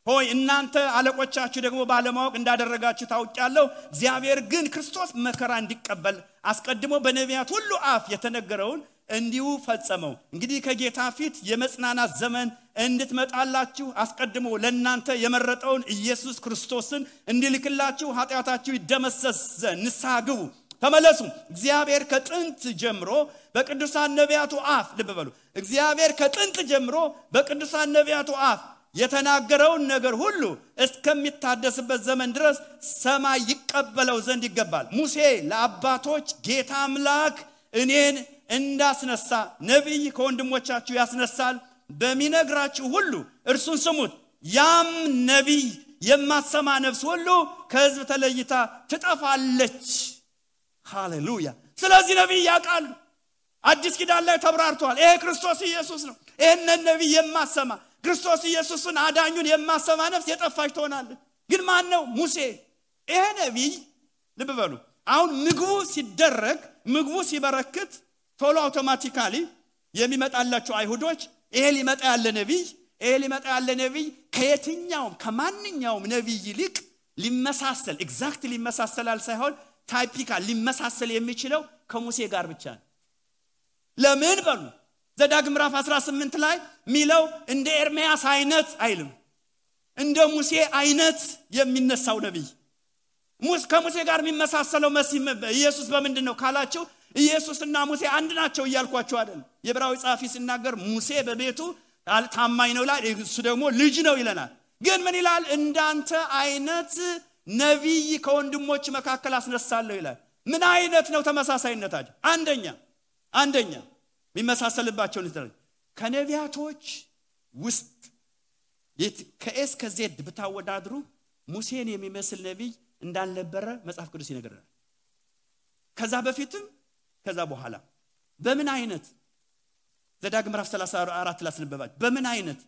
ሆይ እናንተ አለቆቻችሁ ደግሞ ባለማወቅ እንዳደረጋችሁ ታውቃለሁ። እግዚአብሔር ግን ክርስቶስ መከራ እንዲቀበል አስቀድሞ በነቢያት ሁሉ አፍ የተነገረውን እንዲሁ ፈጸመው። እንግዲህ ከጌታ ፊት የመጽናናት ዘመን እንድትመጣላችሁ አስቀድሞ ለእናንተ የመረጠውን ኢየሱስ ክርስቶስን እንዲልክላችሁ ኃጢአታችሁ ይደመሰስ ዘንድ ንስሐ ግቡ ተመለሱ። እግዚአብሔር ከጥንት ጀምሮ በቅዱሳን ነቢያቱ አፍ ልብ በሉ። እግዚአብሔር ከጥንት ጀምሮ በቅዱሳን ነቢያቱ አፍ የተናገረውን ነገር ሁሉ እስከሚታደስበት ዘመን ድረስ ሰማይ ይቀበለው ዘንድ ይገባል። ሙሴ ለአባቶች ጌታ አምላክ እኔን እንዳስነሳ ነብይ ከወንድሞቻችሁ ያስነሳል በሚነግራችሁ ሁሉ እርሱን ስሙት። ያም ነብይ የማትሰማ ነፍስ ሁሉ ከሕዝብ ተለይታ ትጠፋለች። ሃሌሉያ። ስለዚህ ነብይ ያውቃል። አዲስ ኪዳን ላይ ተብራርቷል። ይሄ ክርስቶስ ኢየሱስ ነው። ይሄንን ነብይ የማትሰማ ክርስቶስ ኢየሱስን አዳኙን የማትሰማ ነፍስ የጠፋች ትሆናለች። ግን ማን ነው? ሙሴ። ይሄ ነብይ ልብ በሉ። አሁን ምግቡ ሲደረግ ምግቡ ሲበረክት ቶሎ አውቶማቲካሊ የሚመጣላቸው አይሁዶች ይሄ ሊመጣ ያለ ነብይ ከየትኛውም ከማንኛውም ነብይ ይልቅ ሊመሳሰል ኤግዛክትሊ ሊመሳሰላል ሳይሆን ታይፒካል ሊመሳሰል የሚችለው ከሙሴ ጋር ብቻ ነው። ለምን በሉ ዘዳግም ምዕራፍ 18 ላይ ሚለው እንደ ኤርሚያስ አይነት አይልም፣ እንደ ሙሴ አይነት የሚነሳው ነብይ ከሙሴ ጋር የሚመሳሰለው መሲህ ኢየሱስ በምንድነው ካላችሁ ኢየሱስና ሙሴ አንድ ናቸው እያልኳችሁ አይደል? የዕብራዊ ጻፊ ሲናገር ሙሴ በቤቱ ታማኝ ነው ይላል፣ እሱ ደግሞ ልጅ ነው ይለናል። ግን ምን ይላል? እንዳንተ አይነት ነብይ ከወንድሞች መካከል አስነሳለሁ ይላል። ምን አይነት ነው ተመሳሳይነታቸው? አንደኛ የሚመሳሰልባቸው ነው ከነቢያቶች ውስጥ ከኤስ ከዜድ ብታወዳድሩ ሙሴን የሚመስል ነብይ እንዳልነበረ መጽሐፍ ቅዱስ ይነግረናል። ከዛ በፊትም ከዛ በኋላ በምን አይነት ዘዳግም ምዕራፍ 34 ላስነበባችሁ በምን አይነት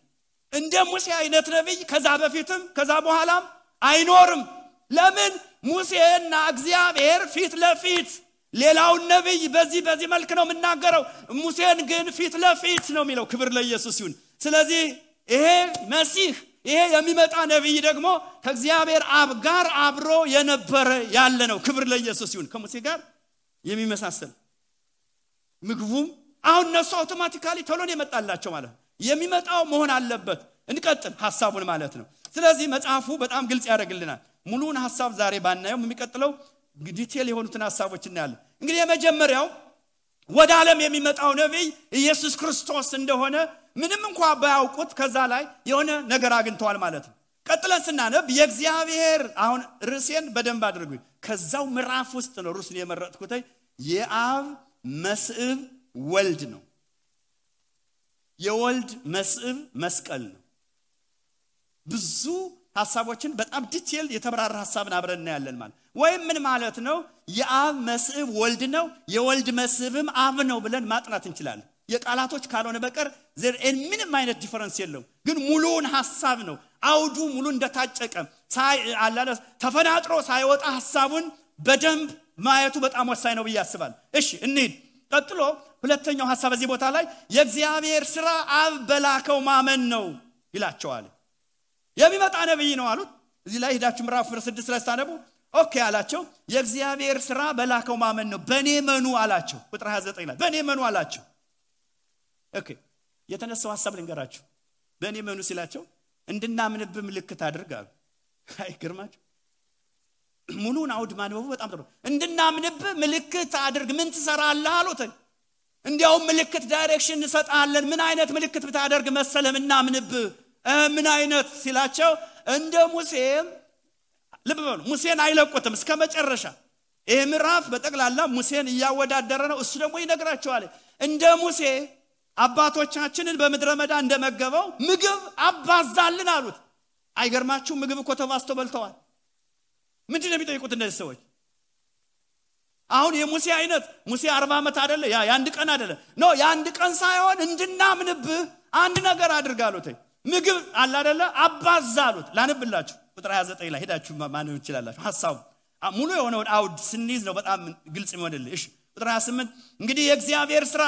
እንደ ሙሴ አይነት ነብይ ከዛ በፊትም ከዛ በኋላም አይኖርም። ለምን? ሙሴና እግዚአብሔር ፊት ለፊት ሌላውን ነብይ በዚህ መልክ ነው የምናገረው፣ ሙሴን ግን ፊት ለፊት ነው የሚለው። ክብር ለኢየሱስ ይሁን። ስለዚህ ይሄ መሲህ ይሄ የሚመጣ ነብይ ደግሞ ከእግዚአብሔር አብ ጋር አብሮ የነበረ ያለ ነው። ክብር ለኢየሱስ ይሁን። ከሙሴ ጋር የሚመሳሰል ምግቡም አሁን እነሱ አውቶማቲካሊ ቶሎን የመጣላቸው ማለት ነው። የሚመጣው መሆን አለበት። እንቀጥል ሐሳቡን ማለት ነው። ስለዚህ መጽሐፉ በጣም ግልጽ ያደርግልናል። ሙሉውን ሐሳብ ዛሬ ባናየው የሚቀጥለው ዲቴል የሆኑትን ሐሳቦች እናያለን። እንግዲህ የመጀመሪያው ወደ ዓለም የሚመጣው ነብይ ኢየሱስ ክርስቶስ እንደሆነ ምንም እንኳን ባያውቁት ከዛ ላይ የሆነ ነገር አግኝተዋል ማለት ነው። ቀጥለን ስናነብ የእግዚአብሔር አሁን ርዕሴን በደንብ አድርጉኝ። ከዛው ምዕራፍ ውስጥ ነው ርዕሱን የመረጥኩት። የአብ መስዕብ ወልድ ነው። የወልድ መስዕብ መስቀል ነው። ብዙ ሐሳቦችን በጣም ዲቴል የተብራራ ሐሳብን አብረን እናያለን ማለት ወይም ምን ማለት ነው? የአብ መስዕብ ወልድ ነው፣ የወልድ መስዕብም አብ ነው ብለን ማጥናት እንችላለን። የቃላቶች ካልሆነ በቀር ምንም አይነት ዲፈረንስ የለውም። ግን ሙሉውን ሐሳብ ነው አውዱ ሙሉ እንደታጨቀ ተፈናጥሮ ሳይወጣ ሐሳቡን በደንብ ማየቱ በጣም ወሳኝ ነው ብዬ አስባለሁ። እሺ እንሂድ። ቀጥሎ ሁለተኛው ሐሳብ በዚህ ቦታ ላይ የእግዚአብሔር ሥራ አብ በላከው ማመን ነው ይላቸዋል። የሚመጣ ነብይ ነው አሉት። እዚህ ላይ ሄዳችሁ ምዕራፍ 6 ላይ ታነቡ። ኦኬ አላቸው። የእግዚአብሔር ሥራ በላከው ማመን ነው፣ በኔ መኑ አላቸው። ቁጥር 29 ላይ በኔ መኑ አላቸው። ኦኬ የተነሳው ሐሳብ ልንገራችሁ። በኔ መኑ ሲላቸው እንድናምንብ ምልክት አድርግ አሉ። አይገርማችሁ? ሙሉን አውድ ማንበቡ በጣም ጥሩ። እንድናምንብ ምልክት አድርግ። ምን ትሰራለህ አሉት። እንዲያው ምልክት ዳይሬክሽን እንሰጣለን። ምን አይነት ምልክት ብታደርግ መሰለም እናምንብ? ምን አይነት ሲላቸው እንደ ሙሴ ልብ በሉ። ሙሴን አይለቁትም እስከ መጨረሻ። ይሄ ምዕራፍ በጠቅላላ ሙሴን እያወዳደረ ነው። እሱ ደግሞ ይነግራቸዋል። እንደ ሙሴ አባቶቻችንን በምድረ በዳ እንደመገበው ምግብ አባዛልን አሉት። አይገርማችሁ? ምግብ እኮ ተባዝቶ በልተዋል። ምንድን ነው የሚጠይቁት እነዚህ ሰዎች? አሁን የሙሴ አይነት ሙሴ 40 ዓመት አይደለ? የአንድ ቀን አይደለ? ኖ የአንድ ቀን ሳይሆን እንድናምንብህ አንድ ነገር አድርጋሉት። ምግብ አለ አይደለ? አባዛሉት። ላንብላችሁ ቁጥር 29 ላይ ሄዳችሁ ማንበብ ትችላላችሁ። ሐሳቡ ሙሉ የሆነውን አውድ ስንይዝ ነው በጣም ግልጽ የሚሆንልህ። እሺ ቁጥር 28 እንግዲህ የእግዚአብሔር ሥራ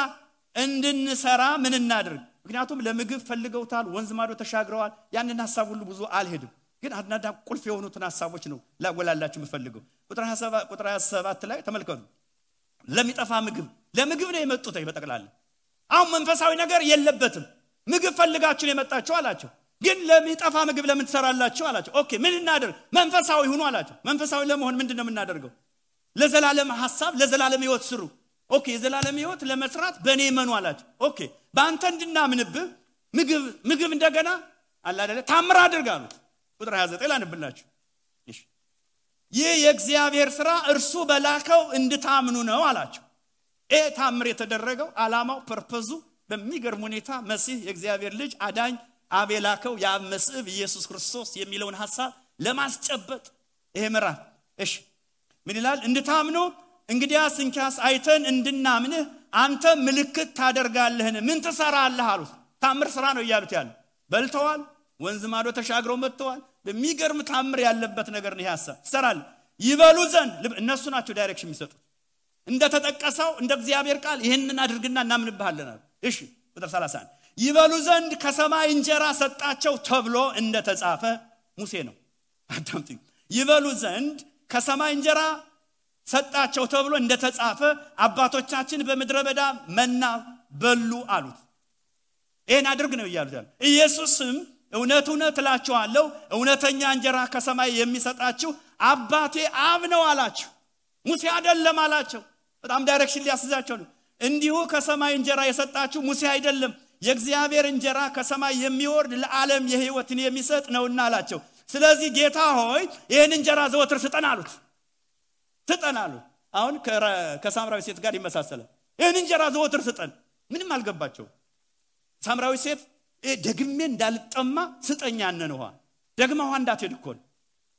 እንድንሰራ ምን እናድርግ ምክንያቱም ለምግብ ፈልገውታል ወንዝ ማዶ ተሻግረዋል ያንን ሐሳብ ሁሉ ብዙ አልሄድም ግን አድናዳ ቁልፍ የሆኑትን ሐሳቦች ነው ላጎላላችሁ የምፈልገው ቁጥር 27 ላይ ተመልከቱ ለሚጠፋ ምግብ ለምግብ ነው የመጡት በጠቅላላ አሁን መንፈሳዊ ነገር የለበትም ምግብ ፈልጋችሁ ነው የመጣችሁ አላቸው ግን ለሚጠፋ ምግብ ለምን ትሰራላችሁ አላቸው ኦኬ ምን እናድርግ መንፈሳዊ ሆኖ አላቸው መንፈሳዊ ለመሆን ምንድነው የምናደርገው ለዘላለም ሐሳብ ለዘላለም ሕይወት ስሩ ኦኬ የዘላለም ሕይወት ለመስራት በኔ መኑ አላቸው ኦኬ ባንተ እንድናምንብህ ምግብ እንደገና አላ አይደለ ታምር አድርጋሉት ቁጥር 29 ላንብላችሁ እሺ ይህ የእግዚአብሔር ሥራ እርሱ በላከው እንድታምኑ ነው አላቸው ታምር የተደረገው ዓላማው ፐርፐዙ በሚገርም ሁኔታ መሲህ የእግዚአብሔር ልጅ አዳኝ አቤላከው ያብ መስዕብ ኢየሱስ ክርስቶስ የሚለውን ሐሳብ ለማስጨበጥ ይሄ ምዕራፍ እሺ ምን ይላል እንድታምኑ እንግዲያስ እንኪያስ አይተን እንድናምንህ አንተ ምልክት ታደርጋለህን ምን ትሰራለህ አሉት ታምር ሥራ ነው ይያሉት ያለ በልተዋል ወንዝ ማዶ ተሻግረው መጥተዋል በሚገርም ታምር ያለበት ነገር ነው ሐሳብ ትሰራለህ ይበሉ ዘንድ እነሱ ናቸው ዳይሬክሽን የሚሰጡት እንደተጠቀሰው እንደ እግዚአብሔር ቃል ይሄንን አድርግና እናምንብሃለን እሺ ቁጥር 31 ይበሉ ዘንድ ከሰማይ እንጀራ ሰጣቸው ተብሎ እንደተጻፈ ሙሴ ነው አዳምጥ ይበሉ ዘንድ ከሰማይ እንጀራ ሰጣቸው ተብሎ እንደተጻፈ አባቶቻችን በመድረ በዳ መና በሉ አሉት ይሄን አድርግ ነው ይያሉታል ኢየሱስም እውነት እላችኋለሁ እውነተኛ እንጀራ ከሰማይ የሚሰጣችሁ አባቴ አብ ነው አላቸው ሙሴ አይደለም አላቸው በጣም ዳይሬክሽን ሊያስዛቸው ነው እንዲሁ ከሰማይ እንጀራ የሰጣችሁ ሙሴ አይደለም የእግዚአብሔር እንጀራ ከሰማይ የሚወርድ ለዓለም የሕይወትን የሚሰጥ ነውና አላቸው ስለዚህ ጌታ ሆይ ይሄን እንጀራ ዘወትር ስጠን አሉት አሁን ከሳምራዊ ሴት ጋር ይመሳሰላል ይሄን እንጀራ ዘወትር ስጠን ምንም አልገባቸው ሳምራዊ ሴት ደግሜ እንዳልጠማ ስጠኛ ነንዋ ደግማ ውሃ እንዳትሄድ እኮ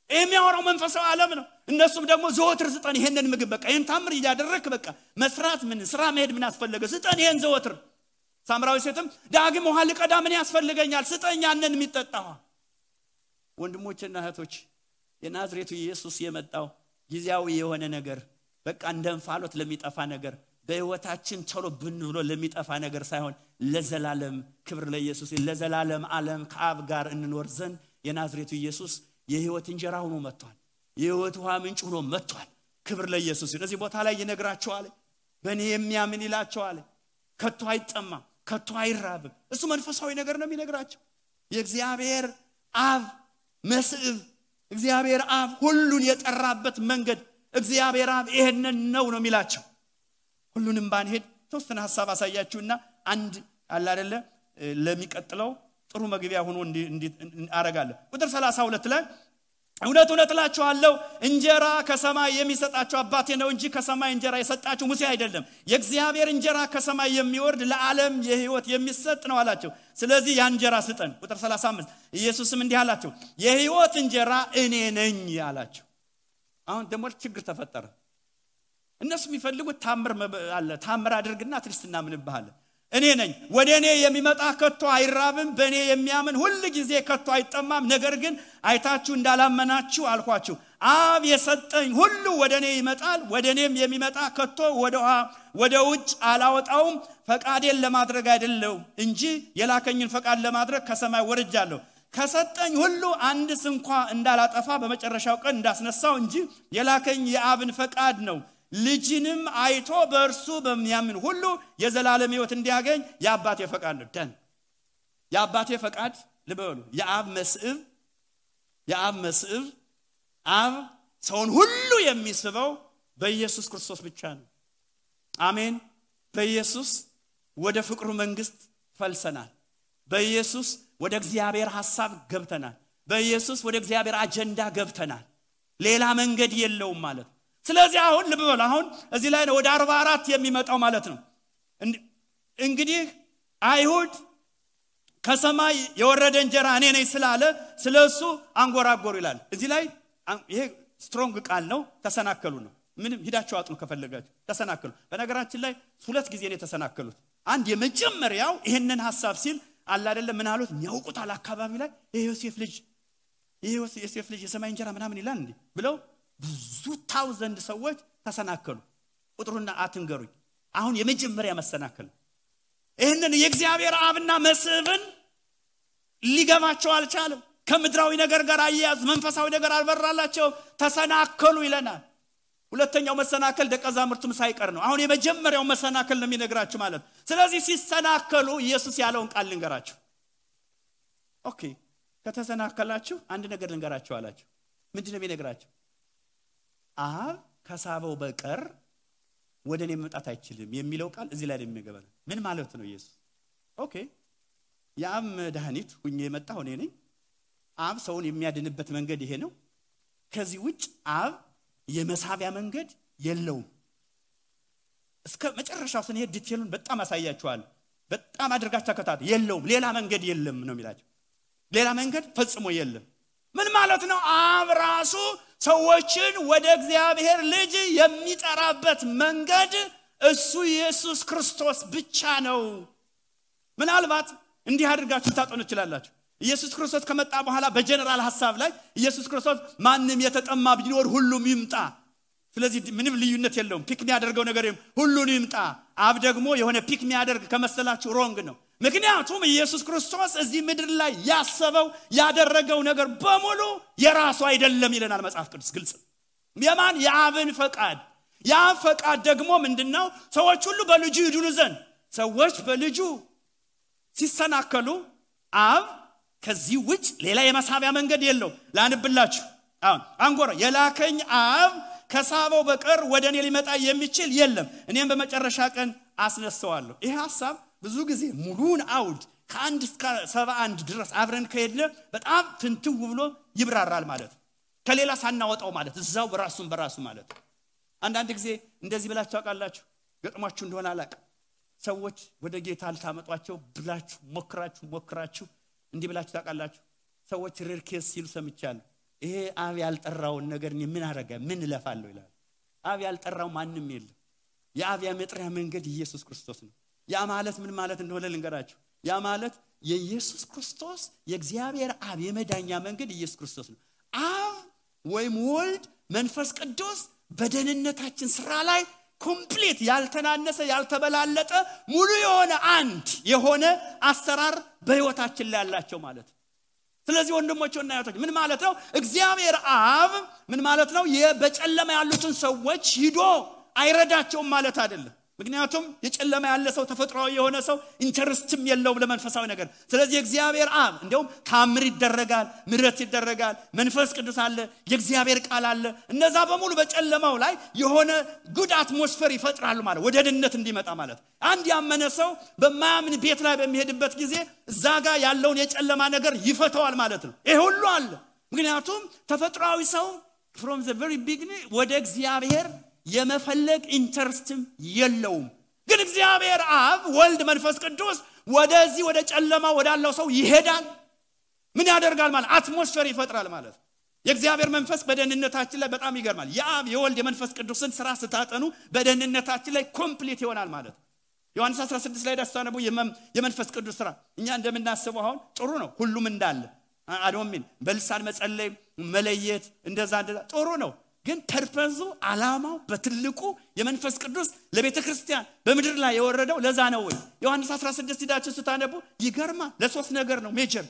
የሚያወራው መንፈሳዊ ዓለም ነው እነሱም ደግሞ ዘወትር ስጠን ይሄንን ምግብ በቃ ይሄን ታምር ያደረክ በቃ መስራት ምን ስራ መሄድ ምን ያስፈልገ ስጠን ይሄን ዘወትር ሳምራዊ ሴትም ዳግም ውሃ ልቀዳ ምን ያስፈልገኛል ስጠኝ ያንን የሚጠጣው ወንድሞችና እህቶች የናዝሬቱ ኢየሱስ የመጣው ጊዜያዊ የሆነ ነገር በቃ እንደንፋሎት ለሚጠፋ ነገር በህይወታችን ቶሎ ብንብሎ ለሚጠፋ ነገር ሳይሆን ለዘላለም ክብር ለኢየሱስ ለዘላለም ዓለም ከአብ ጋር እንኖር ዘንድ የናዝሬቱ ኢየሱስ የህይወት እንጀራ ሆኖ መጥቷል የህይወት ውሃ ምንጭ ሆኖ መጥቷል ክብር ለኢየሱስ ስለዚህ ቦታ ላይ ይነግራቸዋል በእኔ የሚያምን ይላቸዋል ከቶ አይጠማም ከቶ አይራብም እሱ መንፈሳዊ ነገር ነው የሚነግራቸው የእግዚአብሔር አብ መስዕብ እግዚአብሔር አብ ሁሉን የጠራበት መንገድ እግዚአብሔር አብ ይሄንን ነው የሚላቸው ሁሉንም ባንሄድ ተወሰነ ሐሳብ አሳያችሁና አንድ አለ አይደለ ለሚቀጥለው ጥሩ መግቢያ ሆኖ እንዲ አረጋለሁ ቁጥር 32 ላይ እውነት እላችኋለሁ እንጀራ ከሰማይ የሚሰጣችሁ አባቴ ነው እንጂ ከሰማይ እንጀራ የሰጣችሁ ሙሴ አይደለም የእግዚአብሔር እንጀራ ከሰማይ የሚወርድ ለዓለም የሕይወት የሚሰጥ ነው አላቸው ስለዚህ ያ እንጀራ ስጠን ቁጥር 35 ኢየሱስም እንዲህ አላቸው የሕይወት እንጀራ እኔ ነኝ አላቸው አሁን ደግሞ ችግር ተፈጠረ እነሱ የሚፈልጉት ታምር አድርግና ክርስትና ምንባል እኔ ነኝ ወደኔ የሚመጣ ከቶ አይራብም በኔ የሚያምን ሁሉ ጊዜ ከቶ አይጠማም ነገር ግን አይታችሁ እንዳላመናችሁ አልኳችሁ አብ የሰጠኝ ሁሉ ወደኔ ይመጣል ወደኔም የሚመጣ ከቶ ወደ ውጭ አላወጣውም ፈቃዴን ለማድረግ አይደለም እንጂ የላከኝን ፈቃድ ለማድረግ ከሰማይ ወርጃለሁ ከሰጠኝ ሁሉ አንድስ እንኳን እንዳላጠፋ በመጨረሻው ቀን እንዳስነሳው እንጂ የላከኝ የአብን ፈቃድ ነው ልጅንም አይቶ በእርሱ በሚያምን ሁሉ የዘላለም ሕይወት እንዲያገኝ የአባቴ ፈቃድ ነው ደን የአባቴ ፈቃድ ልበሉ የአብ መስዕብ አብ ሰውን ሁሉ የሚስበው በኢየሱስ ክርስቶስ ብቻ ነው አሜን በኢየሱስ ወደ ፍቅሩ መንግስት ፈልሰናል በኢየሱስ ወደ እግዚአብሔር ሐሳብ ገብተናል በኢየሱስ ወደ እግዚአብሔር አጀንዳ ገብተናል ሌላ መንገድ የለውም ማለት ስለዚህ አሁን ልበሉ አሁን እዚህ ላይ ነው ወደ 44 የሚመጣው ማለት ነው እንግዲህ አይሁድ ከሰማይ የወረደ እንጀራ እኔ ነኝ ስላለ ስለሱ አንጎራጎሩ ይላል እዚህ ላይ ይሄ ስትሮንግ ቃል ነው ተሰናከሉ ነው ምንም ሂዳችሁ አጥኑ ከፈለጋችሁ ተሰናከሉ በነገራችን ላይ ሁለት ጊዜ ነው ተሰናከሉት አንድ የመጀመሪያው ይሄንን ሐሳብ ሲል አለ አይደለም ምን አሉት የሚያውቁት አካባቢ ላይ የዮሴፍ ልጅ የሰማይ እንጀራ ምናምን ይላል እንዴ ብለው ብዙ ታውዘንድ ሰዎች ተሰናከሉ ቁጥሩና አትንገሩኝ አሁን የመጀመሪያ መሰናከል ይሄንን የእግዚአብሔር አብና መስብን ሊገባቸው አልቻለም ከምድራዊ ነገር ጋር አያያዝ መንፈሳዊ ነገር አልበራላቸው ተሰናከሉ ይለናል ሁለተኛው መሰናከል ደቀዛምርቱም ሳይቀር ነው አሁን የመጀመሪያው መሰናከል ነው የሚነግራችሁ ማለት ስለዚህ ሲሰናከሉ ኢየሱስ ያለውን ቃል ልንገራችሁ ኦኬ ከተሰናከላችሁ አንድ ነገር ልንገራችሁ አላችሁ ምንድነው የሚነግራችሁ አብ ከሳበው በቀር ወደኔ መምጣት አይችልም የሚለው ቃል እዚህ ላይ የሚገባል ምን ማለት ነው ኢየሱስ ኦኬ ያም መድኃኒት ሁኜ የመጣው እኔ ነኝ አብ ሰውን የሚያድንበት መንገድ ይሄ ነው ከዚህ ውጭ አብ የመሳቢያ መንገድ የለውም እስከ መጨረሻው ስንሄድ ዲቴሉን በጣም አሳያችኋል በጣም አድርጋችሁ ተከታተሉ የለውም ሌላ መንገድ የለም ነው የሚላቸው ሌላ መንገድ ፈጽሞ የለም ምን ማለት ነው አብ ራሱ ሰዎችን ወደ እግዚአብሔር ልጅ የሚጠራበት መንገድ እሱ ኢየሱስ ክርስቶስ ብቻ ነው ምናልባት እንዲህ አድርጋችሁ ታጠኑ ይችላልላችሁ ኢየሱስ ክርስቶስ ከመጣ በኋላ በጀነራል ሐሳብ ላይ ኢየሱስ ክርስቶስ ማንንም የተጠማ ቢኖር ሁሉም ይምጣ ስለዚህ ምንም ልዩነት የለውም ፒክ የሚያደርገው ነገር ሁሉን ይምጣ አብ ደግሞ የሆነ ፒክ የሚያደርግ ከመሰላችሁ ሮንግ ነው ምክንያቱም ኢየሱስ ክርስቶስ እዚህ ምድር ላይ ያሰበው ያደረገው ነገር በሙሉ የራሱ አይደለም ይለናል መጽሐፍ ቅዱስ ግልጽ የማን የአብን ፈቃድ ያ ፈቃድ ደግሞ ምንድነው ሰዎች ሁሉ በልጁ ይድኑ ዘንድ ሰዎች በልጁ ሲሰናከሉ አብ ከዚህ ውጭ ሌላ የመሳቢያ መንገድ የለው ላንብላችሁ አሁን አንጎራ የላከኝ አብ ከሳበው በቀር ወደኔ ሊመጣ የሚችል የለም እኔም በመጨረሻ ቀን አስነሳዋለሁ ይሄ ሐሳብ ብዙ ጊዜ ሙሉን አውድ ከአንድ እስከ 71 ድረስ አብረን ከሄድነ በጣም ፍንትው ብሎ ይብራራል ማለት ከሌላ ሳናወጣው ማለት እዛው በራሱ ማለት አንዳንድ ጊዜ እንደዚህ ብላችሁ አቃላችሁ ገጥሟችሁ እንደሆነ አላቅ ሰዎች ወደ ጌታ አልታመጧቸው ብላችሁ ሞክራችሁ እንዲህ ብላችሁ ታቃላችሁ ሰዎች ሬርኬስ ሲሉ ሰምቻለሁ ይሄ አብ ያልጠራውን ነገር ምን አረጋ ምን ለፋለው ይላል አብ ያልጠራው ማንንም የለም የአብ የመጥሪያ መንገድ ኢየሱስ ክርስቶስ ነው ያ ማለት ምን ማለት እንደሆነ ልንገራችሁ ያ ማለት የኢየሱስ ክርስቶስ የእግዚአብሔር አብ የመዳኛ መንገድ ኢየሱስ ክርስቶስ ነው አብ ወይም ወልድ መንፈስ ቅዱስ በደህንነታችን ስራ ላይ ኮምፕሊት ያልተናነሰ ያልተበላለጠ ሙሉ የሆነ አንድ የሆነ አሰራር በህይወታችን ላይ ያላቸው ማለት ስለዚህ ወንድሞችና እህቶች ምን ማለት ነው እግዚአብሔር አብ ምን ማለት ነው በጨለማ ያሉትን ሰዎች ሂዶ አይረዳቸውም ማለት አይደለም ምክንያቱም የጨለማ ያለ ሰው ተፈጥሯዊ የሆነ ሰው ኢንተረስትም የለውም ለመንፈሳዊ ነገር ስለዚህ እግዚአብሔር አብ እንደውም ታምር ይደረጋል ምሕረት ይደረጋል መንፈስ ቅዱስ አለ የእግዚአብሔር ቃል አለ እነዛ በሙሉ በጨለማው ላይ የሆነ ጉድ አትሞስፌር ይፈጥራሉ ማለት ወደ ድነት እንዲመጣ ማለት አንድ ያመነ ሰው በማያምን ቤት ላይ በሚሄድበት ጊዜ እዛጋ ያለውን የጨለማ ነገር ይፈታዋል ማለት ነው ይሄ ሁሉ አለ ምክንያቱም ተፈጥሯዊ ሰው from the very beginning ወደ እግዚአብሔር የመፈለግ ኢንተረስትም የለውም ግን እግዚአብሔር አብ ወልድ መንፈስ ቅዱስ ወደዚህ ወደ ጨለማ ወዳለው ሰው ይሄዳል ምን ያደርጋል ማለት አትሞስፌር ይፈጥራል ማለት የእግዚአብሔር መንፈስ በደህንነታችን ላይ በጣም ይገርማል የአብ የወልድ የመንፈስ ቅዱስን ስራ ስታጠኑ በደህንነታችን ላይ ኮምፕሊት ይሆናል ማለት ዮሐንስ 16 ላይ ደስታነቡ የመንፈስ ቅዱስ ስራ እኛ እንደምናስበው አሁን ጥሩ ነው ሁሉም እንዳለ አዶሚን በልሳን መጸለይ መለየት እንደዛ ጥሩ ነው ግን ፐርፐዙ አላማው በትልቁ የመንፈስ ቅዱስ ለቤተክርስቲያን በመድር ላይ የወረደው ለዛ ነው ወይ ዮሐንስ 16 ዳችሁ ስታነቡ ይገርማ ለሶስት ነገር ነው ሜጀር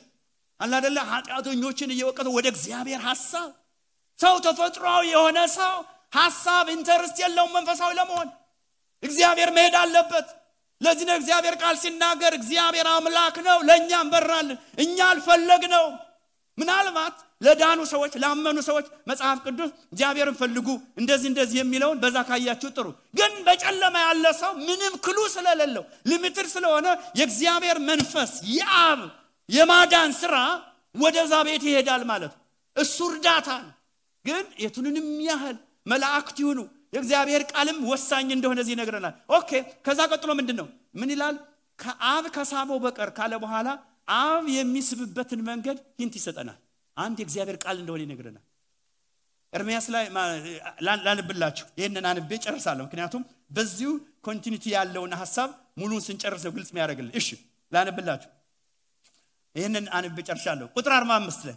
አላ አይደለ ኃጢአተኞችን እየወቀተ ወደ እግዚአብሔር ሐሳብ ሰው ተፈጥሯዊ የሆነ ሰው ሐሳብ ኢንተረስት የለውም መንፈሳዊ ለመሆን እግዚአብሔር መሄድ አለበት ለዚህ ነው እግዚአብሔር ቃል ሲናገር እግዚአብሔር አምላክ ነው ለኛም በራልን እኛ አልፈለግነው ምናልባት ለዳኑ ሰዎች ላመኑ ሰዎች መጽሐፍ ቅዱስ እግዚአብሔርን ፈልጉ እንደዚህ የሚለውን በዛ ካያችሁ ጥሩ ግን በጨለማ ያለ ሰው ምንም ክሉ ስለሌለው ሊሚትድ ስለሆነ የእግዚአብሔር መንፈስ የአብ የማዳን ስራ ወደዛ ቤት ይሄዳል ማለት እሱ እርዳታ ግን የቱንንም ያህል መላእክት ይሁኑ የእግዚአብሔር ቃልም ወሳኝ እንደሆነ እዚህ ይነግረናል ኦኬ ከዛ ቀጥሎ ምንድነው ምን ይላል ከአብ ከሳበው በቀር ካለ በኋላ አብ የሚስብበትን መንገድ ሂንት ይሰጠናል አንድ የእግዚአብሔር ቃል እንደሆነ ይነግረናል ኤርምያስ ላይ ላንብላችሁ ይሄንን አንብቤ ጨርሳለሁ ምክንያቱም በዚሁ ኮንቲኒቲ ያለውን ሐሳብ ሙሉን ስንጨርሰው ግልጽ የሚያደርግልን እሺ ላንብላችሁ ይሄንን አንብቤ ጨርሻለሁ ቁጥር 45 ላይ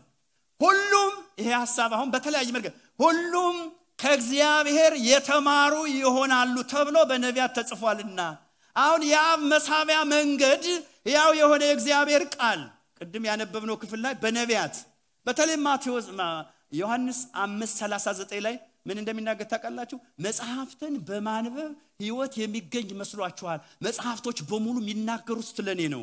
ሁሉም ይሄ ሐሳብ አሁን በተለያየ መንገድ ሁሉም ከእግዚአብሔር የተማሩ ይሆናሉ ተብሎ በነቢያት ተጽፏልና አሁን የአብ መሳቢያ መንገድ ያው የሆነ የእግዚአብሔር ቃል ቅድም ያነበብነው ክፍል ላይ በነቢያት በተለይ ማቴዎስ ዮሐንስ 5:39 ላይ ምን እንደሚናገር ታውቃላችሁ? መጽሐፍትን በማንበብ ሕይወት የሚገኝ መስሏችኋል? መጽሐፍቶች በሙሉ የሚናገሩት ስለኔ ነው።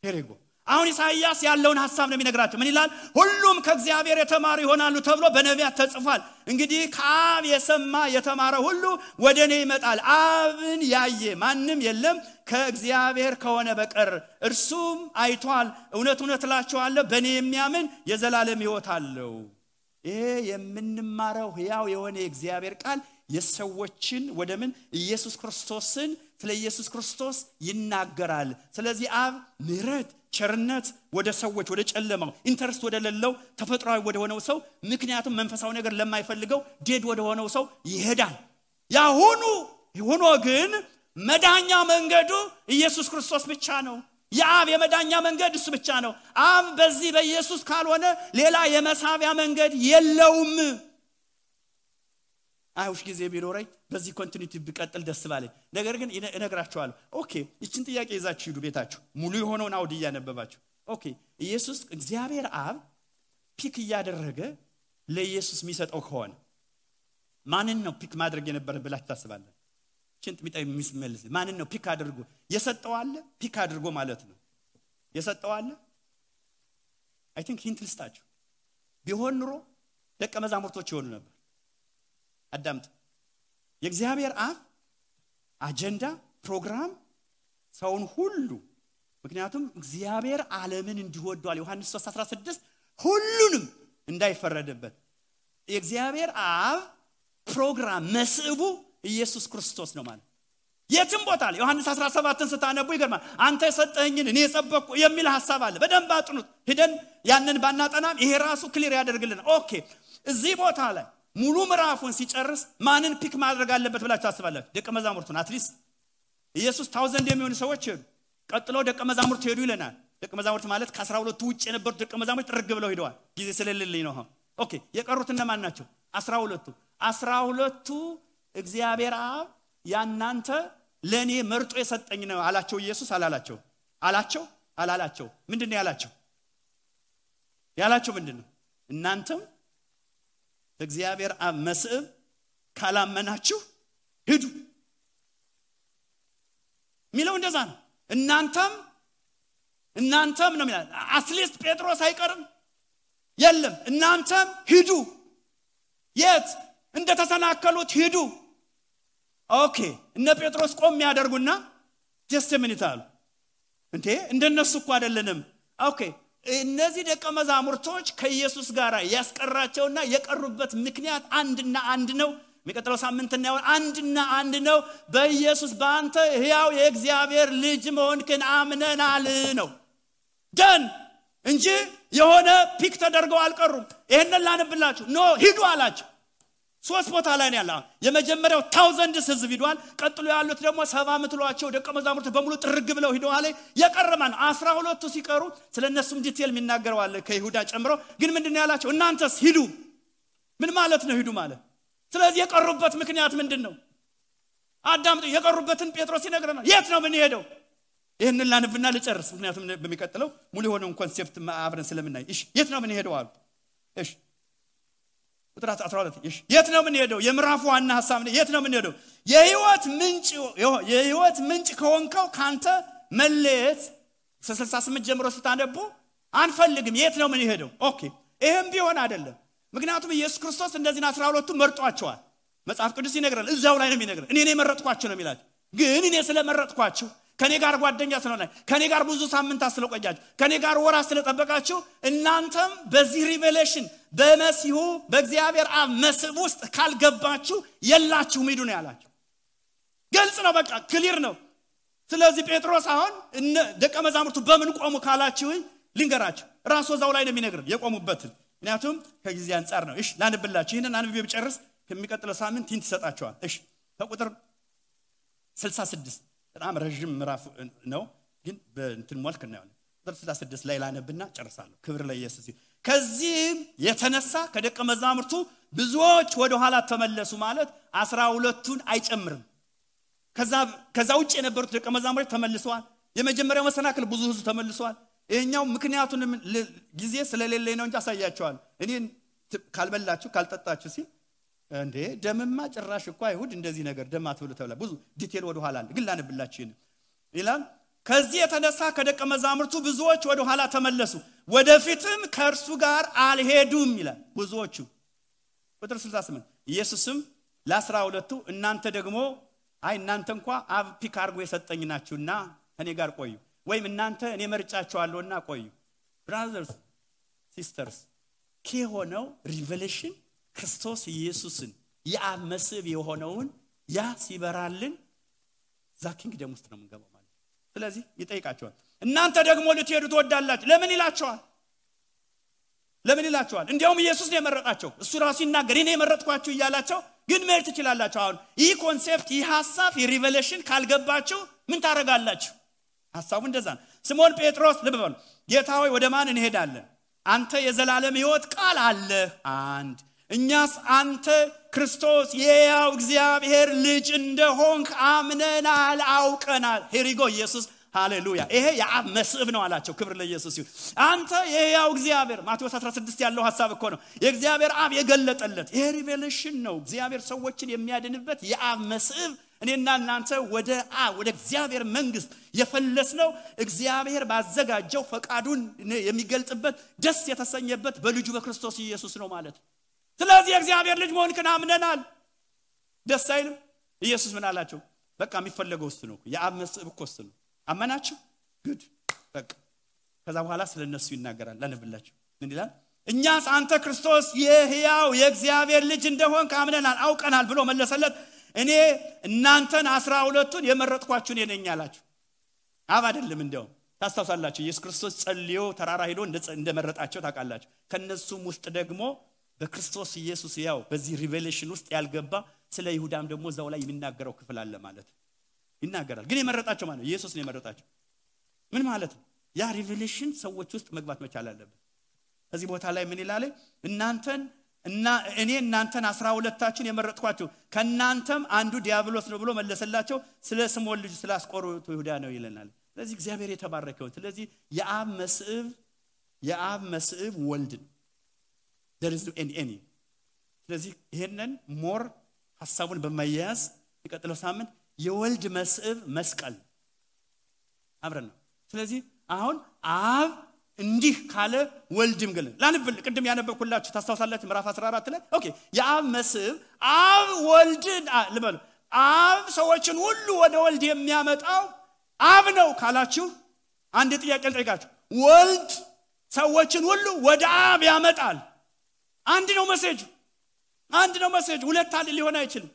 ሄሬጎ አሁን ኢሳይያስ ያለውን ሐሳብ ነው የሚነግራቸው። ምን ይላል? ሁሉም ከእግዚአብሔር የተማሩ ይሆናሉ ተብሎ በነቢያት ተጽፏል። እንግዲህ ከአብ የሰማ የተማረ ሁሉ ወደኔ ይመጣል። አብን ያየ ማንም የለም ከእግዚአብሔር ከሆነ በቀር እርሱም አይቷል። እውነት እውነት እላችኋለሁ በእኔ የሚያምን የዘላለም ሕይወት አለው። ይሄ የምንማረው ሕያው የሆነ የእግዚአብሔር ቃል የሰዎችን ወደምን ኢየሱስ ክርስቶስን ስለ ኢየሱስ ክርስቶስ ይናገራል። ስለዚህ አብ ምሕረት ቸርነት ወደ ሰዎች ወደ ጨለማው ኢንተረስት ወደ ሌለው ተፈጥሯዊ ወደ ሆነው ሰው ምክንያቱም መንፈሳዊ ነገር ለማይፈልገው ዴድ ወደ ሆነው ሰው ይሄዳል። ያሁኑ ሆኖ ግን መዳኛ መንገዱ ኢየሱስ ክርስቶስ ብቻ ነው። የአብ የመዳኛ መንገድ እሱ ብቻ ነው። አብ በዚህ በኢየሱስ ካልሆነ ሌላ የመሳቢያ መንገድ የለውም። አይሁሽ ጊዜ ቢኖረኝ በዚህ ኮንቲኒቲ ቢቀጥል ደስ ባለኝ። ነገር ግን እነግራችኋለሁ። ኦኬ እቺን ጥያቄ ይዛችሁ ሂዱ ቤታችሁ ሙሉ የሆነውን አውድ እያነበባችሁ። ኦኬ ኢየሱስ እግዚአብሔር አብ ፒክ እያደረገ ለኢየሱስ የሚሰጠው ከሆነ ማንን ነው ፒክ ማድረግ የነበረ ብላችሁ ታስባላችሁ? እቺን ጥያቄ የሚስመልስ ማንን ነው ፒክ አድርጎ የሰጠው አለ? ፒክ አድርጎ ማለት ነው የሰጠው አለ? አይ ቲንክ ሂንት ልስጣችሁ። ቢሆን ኑሮ ደቀ መዛሙርቶች ይሆኑ ነበር። አዳምጥ። የእግዚአብሔር አብ አጀንዳ ፕሮግራም ሰውን ሁሉ ምክንያቱም እግዚአብሔር ዓለምን እንዲወዷል ዮሐንስ 3:16 ሁሉንም እንዳይፈረድበት የእግዚአብሔር አብ ፕሮግራም መስእቡ ኢየሱስ ክርስቶስ ነው ማለት የትም ቦታ ላይ ዮሐንስ 17ን ስታነቡ ይገርማል። አንተ የሰጠኸኝን እኔ የሰበኩ የሚል ሐሳብ አለ። በደንብ አጥኑት። ሄደን ያንን ባናጠናም ይሄ ራሱ ክሊር ያደርግልናል። ኦኬ እዚህ ቦታ ላይ ሙሉ ምዕራፉን ሲጨርስ ማንን ፒክ ማድረግ አለበት ብላችሁ ታስባላችሁ? ደቀ መዛሙርቱን። አትሊስት ኢየሱስ 1000 የሚሆኑ ሰዎች ሄዱ። ቀጥሎ ደቀ መዛሙርት ሄዱ ይለናል። ደቀ መዛሙርት ማለት ከ12ቱ ውጭ የነበሩት ደቀ መዛሙርት ጥርግ ብለው ሄደዋል። ጊዜ ስለሌለኝ ነው። ኦኬ የቀሩት እነማን ናቸው? 12ቱ እግዚአብሔር አብ ያናንተ ለኔ መርጦ የሰጠኝ ነው አላቸው። ኢየሱስ አላላቸው? አላቸው? አላላቸው? ምንድነው ያላቸው? ያላቸው ምንድነው? እናንተም እግዚአብሔር አብ መስእብ ካላመናችሁ ሂዱ ሚለው እንደዛ ነው። እናንተም ነው የሚለው። አትሊስት ጴጥሮስ አይቀርም የለም እናንተም ሂዱ። የት እንደተሰናከሉት ሂዱ። ኦኬ እነ ጴጥሮስ ቆም ያደርጉና ጀስት ሚኒት አሉ። እንዴ እንደነሱ እኮ አይደለንም። ኦኬ እነዚህ ደቀ መዛሙርቶች ከኢየሱስ ጋር ያስቀራቸውና የቀሩበት ምክንያት አንድና አንድ ነው። የሚቀጥለው ሳምንት እናየው። አንድና አንድ ነው። በኢየሱስ በአንተ ሕያው የእግዚአብሔር ልጅ መሆንክን አምነናል ነው ደን እንጂ የሆነ ፒክ ተደርገው አልቀሩም። ይሄንን ላንብላችሁ። ኖ ሂዱ አላቸው። 3 ቦታ ላይ ነው ያለው። የመጀመሪያው 1000 ህዝብ ሄዷል። ቀጥሎ ያሉት ደግሞ 70 ምትሏቸው ደቀ መዛሙርት በሙሉ ጥርግ ብለው ሄደዋል። የቀረማን 12ቱ ሲቀሩ ስለነሱም ዲቴል የሚናገረው አለ ከይሁዳ ጨምሮ። ግን ምንድነው ያላቸው? እናንተስ ሂዱ። ምን ማለት ነው ሂዱ ማለት? ስለዚህ የቀሩበት ምክንያት ምንድነው? አዳምጡ። የቀሩበትን ጴጥሮስ ይነግረናል። የት ነው ምን ሄደው? ይሄንን ላንብና ልጨርስ፣ ምክንያቱም በሚቀጥለው ሙሉ የሆነውን ኮንሴፕት አብረን ስለምናይ። እሺ የት ነው ምን ሄደው አሉ። እሺ ቁጥር 12 እሺ የት ነው ምን ሄደው? የምዕራፉ ዋና ሐሳብ ነው። የት ነው ምን ሄደው? የህይወት ምንጭ ከሆንከው ካንተ መለየት 68 ጀምሮ ስታነቡ አንፈልግም። የት ነው ምን ሄደው? ኦኬ ይሄም ቢሆን አይደለም። ምክንያቱም ኢየሱስ ክርስቶስ እንደዚህ 12ቱ መርጧቸዋል። መጽሐፍ ቅዱስ ይነግራል። እዛው ላይ ነው የሚነግረው። እኔ ነኝ መረጥኳቸው ነው የሚላቸው። ግን እኔ ስለመረጥኳቸው ከኔ ጋር ጓደኛ ስለሆነ ከኔ ጋር ብዙ ሳምንት አስለቆያችሁ ከኔ ጋር ወራት ስለጠበቃችሁ እናንተም በዚህ ሪቨሌሽን በመሲሁ በእግዚአብሔር አብ መስብ ውስጥ ካልገባችሁ የላችሁም ሂዱ ነው ያላቸው። ግልጽ ነው። በቃ ክሊር ነው። ስለዚህ ጴጥሮስ አሁን ደቀ መዛሙርቱ በምን ቆሙ ካላችሁ ልንገራችሁ። ራሱ እዛው ላይ ነው የሚነግረው የቆሙበትን። ምክንያቱም ከጊዜ አንፃር ነው። እሺ ላንብላችሁ። ይሄንን አንብቤ ብጨርስ ከሚቀጥለው ሳምንት ሂንት ይሰጣችኋል። እሺ ከቁጥር 66 በጣም ረጅም ምዕራፍ ነው፣ ግን በእንትን መልክ ነው። ቁጥር 66 ላይ ላነብና ጨርሳለሁ። ክብር ለኢየሱስ ይሁን። ከዚህም የተነሳ ከደቀ መዛሙርቱ ብዙዎች ወደ ኋላ ተመለሱ ማለት 12ቱን አይጨምርም። ከዛ ውጭ የነበሩት ደቀ መዛሙርት ተመልሰዋል። የመጀመሪያው መሰናክል ብዙ ህዝብ ተመልሰዋል። ይሄኛው ምክንያቱን ጊዜ ስለሌለኝ ነው እንጂ አሳያቸዋል። እኔ ካልበላችሁ ካልጠጣችሁ ሲል እንዴ ደምማ ጭራሽ እኮ አይሁድ እንደዚህ ነገር ደም አትብሉ ተብሏል። ብዙ ዲቴል ወደ ኋላ ግን ላንብላችሁ ይላል። ከዚህ የተነሳ ከደቀ መዛሙርቱ ብዙዎች ወደ ኋላ ተመለሱ፣ ወደፊትም ከእርሱ ጋር አልሄዱም ይላል ብዙዎቹ። ቁጥር 68 ኢየሱስም ለ12ቱ እናንተ ደግሞ እናንተ እንኳን አብ ፒክ አድርጎ የሰጠኝ ናችሁና እኔ ጋር ቆዩ፣ ወይም እናንተ እኔ መርጫችኋለሁና ቆዩ። ብራዘርስ ሲስተርስ ከሆነው ሪቨሌሽን ክርስቶስ ኢየሱስን የአብ መስብ የሆነውን ያ ሲበራልን ዛ ኪንግደም ውስጥ ነው የምንገባው ማለት። ስለዚህ ይጠይቃቸዋል እናንተ ደግሞ ልትሄዱ ትወዳላችሁ ለምን ይላቸዋል? ለምን ይላቸዋል? እንዲያውም ኢየሱስ ነው የመረጣቸው። እሱ ራሱ ይናገር እኔ የመረጥኳችሁ እያላቸው ግን መሄድ ትችላላችሁ። አሁን ይህ ኮንሴፕት ይህ ሐሳብ የሪቨሌሽን ካልገባችሁ ምን ታረጋላችሁ? ሐሳቡ እንደዛ ነው። ስምዖን ጴጥሮስ ልብ በሉ ጌታ ሆይ ወደ ማን እንሄዳለን? አንተ የዘላለም ሕይወት ቃል አለ አንድ እኛስ አንተ ክርስቶስ የሕያው እግዚአብሔር ልጅ እንደሆንክ አምነናል አውቀናል። ሄሪጎ ኢየሱስ ሃሌሉያ ይሄ የአብ መስብ ነው አላቸው። ክብር ለኢየሱስ ይሁን። አንተ የሕያው እግዚአብሔር ማቴዎስ 16 ያለው ሐሳብ እኮ ነው የእግዚአብሔር አብ የገለጠለት ይሄ ሪቨሌሽን ነው። እግዚአብሔር ሰዎችን የሚያድንበት የአብ መስብ እኔና እናንተ ወደ እግዚአብሔር መንግስት የፈለስነው እግዚአብሔር ባዘጋጀው ፈቃዱን የሚገልጥበት ደስ የተሰኘበት በልጁ በክርስቶስ ኢየሱስ ነው ማለት። ስለዚህ እግዚአብሔር ልጅ መሆንክን አምነናል። ደስ አይልም? ኢየሱስ ምን አላቸው? በቃ የሚፈለገው እሱ ነው። የአብ መስብ እኮ እሱ ነው። አመናችሁ ጉድ በቃ። ከዛ በኋላ ስለነሱ ይናገራል። ላነብላችሁ ምን ይላል? እኛስ አንተ ክርስቶስ የሕያው የእግዚአብሔር ልጅ እንደሆንክ አምነናል አውቀናል ብሎ መለሰለት። እኔ እናንተን 12ቱን የመረጥኳችሁ እኔ ነኝ አላችሁ። አብ አይደለም። እንደው ታስተውሳላችሁ ኢየሱስ ክርስቶስ ጸልዮ ተራራ ሄዶ እንደመረጣቸው ታውቃላችሁ። ከነሱም ውስጥ ደግሞ በክርስቶስ ኢየሱስ ያው በዚህ ሪቨሌሽን ውስጥ ያልገባ ስለ ይሁዳም ደግሞ እዛው ላይ የሚናገረው ክፍል አለ ማለት ይናገራል። ግን የመረጣቸው ማለት ኢየሱስ ነው የመረጣቸው። ምን ማለት ነው? ያ ሪቨሌሽን ሰዎች ውስጥ መግባት መቻል አለበት። እዚህ ቦታ ላይ ምን ይላል? እኔ እናንተን 12ታችሁን የመረጥኳችሁ ከናንተም አንዱ ዲያብሎስ ነው ብሎ መለሰላቸው። ስለ ስምዖን ልጅ ስለ አስቆሮቱ ይሁዳ ነው ይለናል። ስለዚህ እግዚአብሔር የተባረከው። ስለዚህ የአብ መስብ ወልድ ነው። there is any ስለዚህ ይሄንን ሞር ሐሳቡን በማያያዝ ይቀጥለው ሳምንት የወልድ መስብ መስቀል አብረን ነው። ስለዚህ አሁን አብ እንዲህ ካለ ወልድም ገለ ላንብል ቅድም ያነበብኩላችሁ ታስተውሳላችሁ ምዕራፍ 14 ላይ ኦኬ የአብ መስብ አብ ወልድን ልበሉ አብ ሰዎችን ሁሉ ወደ ወልድ የሚያመጣው አብ ነው ካላችሁ አንድ ጥያቄ ልጠይቃችሁ። ወልድ ሰዎችን ሁሉ ወደ አብ ያመጣል። አንድ ነው መሴጅ ሁለት አለ ሊሆን አይችልም።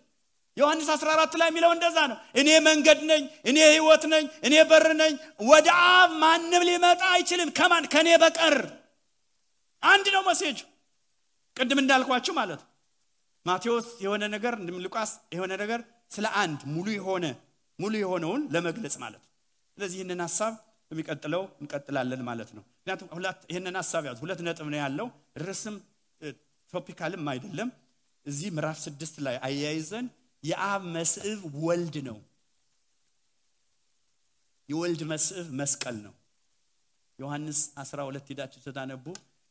ዮሐንስ 14 ላይ የሚለው እንደዛ ነው። እኔ መንገድ ነኝ፣ እኔ ሕይወት ነኝ፣ እኔ በር ነኝ፣ ወደ አብ ማንም ሊመጣ አይችልም ከኔ በቀር። አንድ ነው መሴጅ። ቅድም እንዳልኳችሁ ማለት ማቴዎስ የሆነ ነገር ሉቃስ የሆነ ነገር ስለ አንድ ሙሉ የሆነውን ለመግለጽ ማለት። ስለዚህ ይሄንን ሐሳብ በሚቀጥለው እንቀጥላለን ማለት ነው። ምክንያቱም ይሄንን ሐሳብ ያዙ። ሁለት ነጥብ ነው ያለው። ርዕስም ቶፒካልም አይደለም። እዚህ ምዕራፍ 6 ላይ አያይዘን የአብ መስብ ወልድ ነው። የወልድ መስብ መስቀል ነው። ዮሐንስ 12 ሄዳችሁ ተታነቡ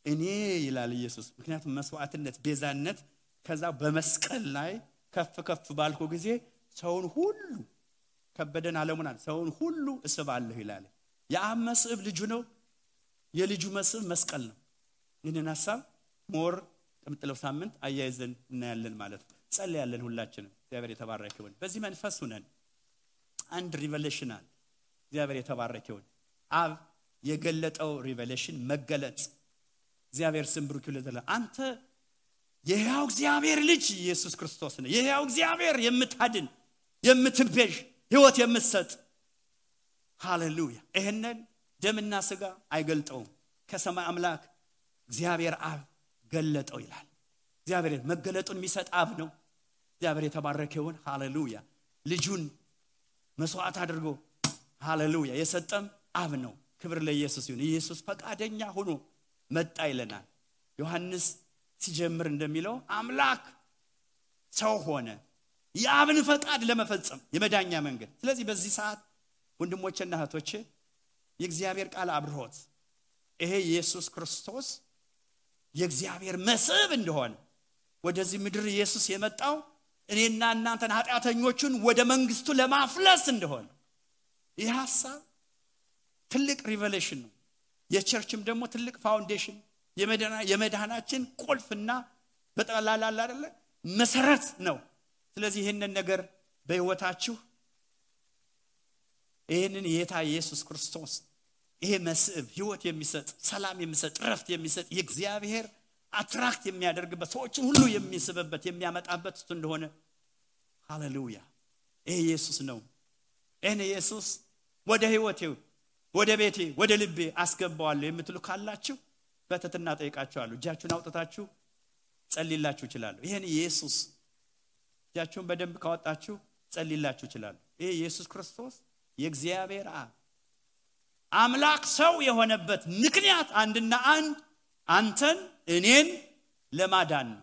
እኔ ይላል ኢየሱስ። ምክንያቱም መስዋዕትነት ቤዛነት ከዛ በመስቀል ላይ ከፍ ባልኩ ጊዜ ሰውን ሁሉ ከበደን ዓለሙን ሰውን ሁሉ እስባለሁ ይላል። የአብ መስብ ልጁ ነው። የልጁ መስብ መስቀል ነው። ይህንን ሐሳብ ሞር ቀምጥለው ሳምንት አያይዘን እናያለን ማለት ነው። ጸልያለን ሁላችንም። እግዚአብሔር የተባረከ ይሁን። በዚህ መንፈስ ሆነን አንድ ሪቨሌሽን አለ። እግዚአብሔር የተባረከ ይሁን። አብ የገለጠው ሪቨሌሽን መገለጥ እግዚአብሔር ስም ብሩክ ይሁን። አንተ የሕያው እግዚአብሔር ልጅ ኢየሱስ ክርስቶስ ነህ። የሕያው እግዚአብሔር የምታድን የምትቤዥ ሕይወት የምትሰጥ ሃሌሉያ። ይሄንን ደምና ሥጋ አይገልጠውም። ከሰማይ አምላክ እግዚአብሔር አብ ገለጠው ይላል። እግዚአብሔር መገለጡን የሚሰጥ አብ ነው። እግዚአብሔር የተባረከ ይሁን። ሃሌሉያ። ልጁን መስዋዕት አድርጎ ሃሌሉያ የሰጠም አብ ነው። ክብር ለኢየሱስ ይሁን። ኢየሱስ ፈቃደኛ ሆኖ መጣ ይለናል። ዮሐንስ ሲጀምር እንደሚለው አምላክ ሰው ሆነ። የአብን ፈቃድ ለመፈጸም የመዳኛ መንገድ። ስለዚህ በዚህ ሰዓት ወንድሞቼና እህቶቼ የእግዚአብሔር ቃል አብርሆት ይሄ ኢየሱስ ክርስቶስ የእግዚአብሔር መስዕብ እንደሆነ ወደዚህ ምድር ኢየሱስ የመጣው እኔና እናንተን ኃጢአተኞቹን ወደ መንግስቱ ለማፍለስ እንደሆነ ይህ ሐሳብ ትልቅ ሪቨሌሽን ነው። የቸርችም ደግሞ ትልቅ ፋውንዴሽን የመዳናችን ቁልፍና በጠቅላላ አይደለ መሰረት ነው። ስለዚህ ይሄንን ነገር በህይወታችሁ ይሄንን የጌታ ኢየሱስ ክርስቶስ ይሄ መስዕብ ህይወት የሚሰጥ ሰላም የሚሰጥ ረፍት የሚሰጥ የእግዚአብሔር አትራክት የሚያደርግበት ሰዎችን ሁሉ የሚስብበት የሚያመጣበት እንደሆነ ሃሌሉያ ይሄ ኢየሱስ ነው። እኔ ኢየሱስ ወደ ህይወቴ ወደ ቤቴ ወደ ልቤ አስገባዋለሁ የምትሉ ካላችሁ በትህትና ጠይቃችኋለሁ። እጃችሁን አውጥታችሁ ጸልይላችሁ ይችላል። ይሄን ኢየሱስ እጃችሁን በደንብ ካወጣችሁ ጸልይላችሁ ይችላል። ይሄ ኢየሱስ ክርስቶስ የእግዚአብሔር አምላክ ሰው የሆነበት ምክንያት አንድና አንድ አንተን እኔን ለማዳን ነው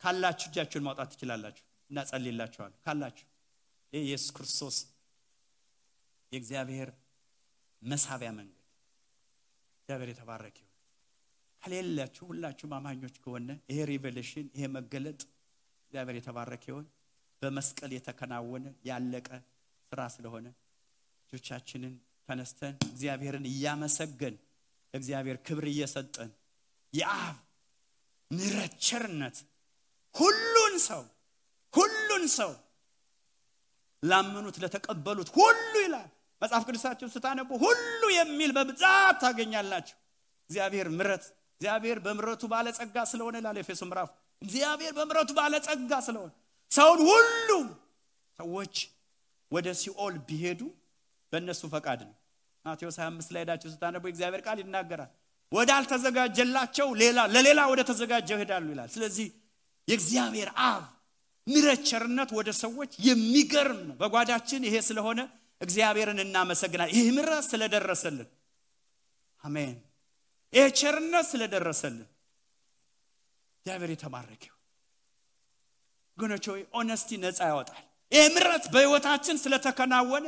ካላችሁ እጃችሁን ማውጣት ትችላላችሁ እና ጸልይላችኋለሁ ካላችሁ። ይሄ ኢየሱስ ክርስቶስ የእግዚአብሔር መሳቢያ መንገድ እግዚአብሔር የተባረከ ይሁን። ከሌላችሁ ሁላችሁም አማኞች ከሆነ ይሄ ሪቨሌሽን ይሄ መገለጥ እግዚአብሔር የተባረከ ይሁን። በመስቀል የተከናወነ ያለቀ ስራ ስለሆነ እጆቻችንን ተነስተን እግዚአብሔርን እያመሰገን እግዚአብሔር ክብር እየሰጠን የአብ ምሕረት ቸርነት ሁሉን ሰው ላመኑት ለተቀበሉት ሁሉ ይላል መጽሐፍ ቅዱሳችሁን ስታነቡ ሁሉ የሚል በብዛት ታገኛላችሁ። እግዚአብሔር ምሕረት እግዚአብሔር በምሕረቱ ባለጸጋ ስለሆነ ይላል ኤፌሶን ምዕራፍ እግዚአብሔር በምሕረቱ ባለጸጋ ስለሆነ ሰውን ሁሉ ሰዎች ወደ ሲኦል ቢሄዱ በእነሱ ፈቃድ ነው። ማቴዎስ 25 ላይ ዳችሁ ስታነቡ እግዚአብሔር ቃል ይናገራል ወዳልተዘጋጀላቸው ለሌላ ወደ ተዘጋጀው ይሄዳሉ ይላል። ስለዚህ የእግዚአብሔር አብ ምሕረት ቸርነት ወደ ሰዎች የሚገርም ነው። በጓዳችን ይሄ ስለሆነ እግዚአብሔርን እናመሰግናለን። ይሄ ምሕረት ስለደረሰልን አሜን። ይሄ ቸርነት ስለደረሰልን እግዚአብሔር የተባረከ ይሁን። ጎኖች ሆይ ኦነስቲ ነፃ ያወጣል። ይሄ ምሕረት በህይወታችን ስለተከናወነ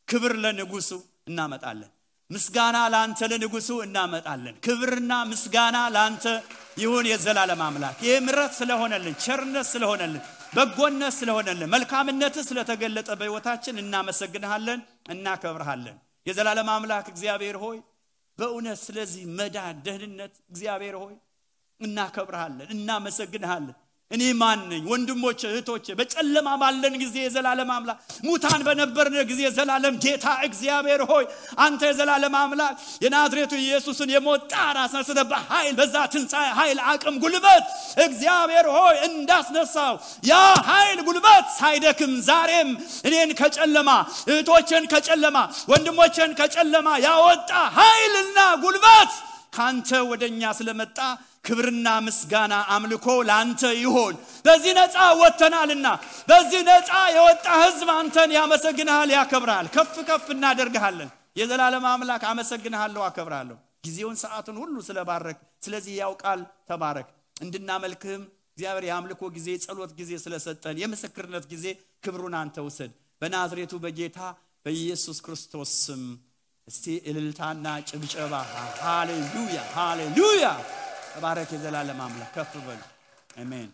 ክብር ለንጉሱ እናመጣለን። ምስጋና ላንተ ለንጉሱ እናመጣለን። ክብርና ምስጋና ላንተ ይሁን የዘላለም አምላክ። ይሄ ምሕረት ስለሆነልን ቸርነት ስለሆነልን በጎነት ስለሆነልን መልካምነት ስለተገለጠ በህይወታችን እናመሰግንሃለን እናከብርሃለን። የዘላለም አምላክ እግዚአብሔር ሆይ በእውነት ስለዚህ መዳን ደህንነት እግዚአብሔር ሆይ እናከብርሃለን እናመሰግንሃለን። እኔ ማን ነኝ ወንድሞቼ እህቶቼ በጨለማ ባለን ጊዜ የዘላለም አምላክ ሙታን በነበርን ጊዜ የዘላለም ጌታ እግዚአብሔር ሆይ አንተ የዘላለም አምላክ የናዝሬቱ ኢየሱስን የሞት ጣር አስነስተህ በኃይል በዛ ትንሣኤ ኃይል አቅም ጉልበት እግዚአብሔር ሆይ እንዳስነሳው ያ ኃይል ጉልበት ሳይደክም ዛሬም እኔን ከጨለማ እህቶቼን ከጨለማ ወንድሞቼን ከጨለማ ያወጣ ኃይልና ጉልበት ካንተ ወደኛ ስለመጣ ክብርና ምስጋና አምልኮ ላንተ ይሁን። በዚህ ነፃ ወጥተናልና በዚህ ነፃ የወጣ ህዝብ አንተን ያመሰግናል ያከብራል ከፍ ከፍ እናደርግሃለን። የዘላለም አምላክ አመሰግናለሁ አከብራለሁ ጊዜውን ሰዓቱን ሁሉ ስለባረክ ስለዚህ ያውቃል ተባረክ። እንድናመልክህም እግዚአብሔር የአምልኮ ጊዜ ጸሎት ጊዜ ስለሰጠን የምስክርነት ጊዜ ክብሩን አንተ ውሰድ በናዝሬቱ በጌታ በኢየሱስ ክርስቶስ ስም። እስቲ እልልታና ጭብጨባ ሃሌሉያ ሃሌሉያ ተባረክ የዘላለም አምላክ ከፍ በሉ አሜን።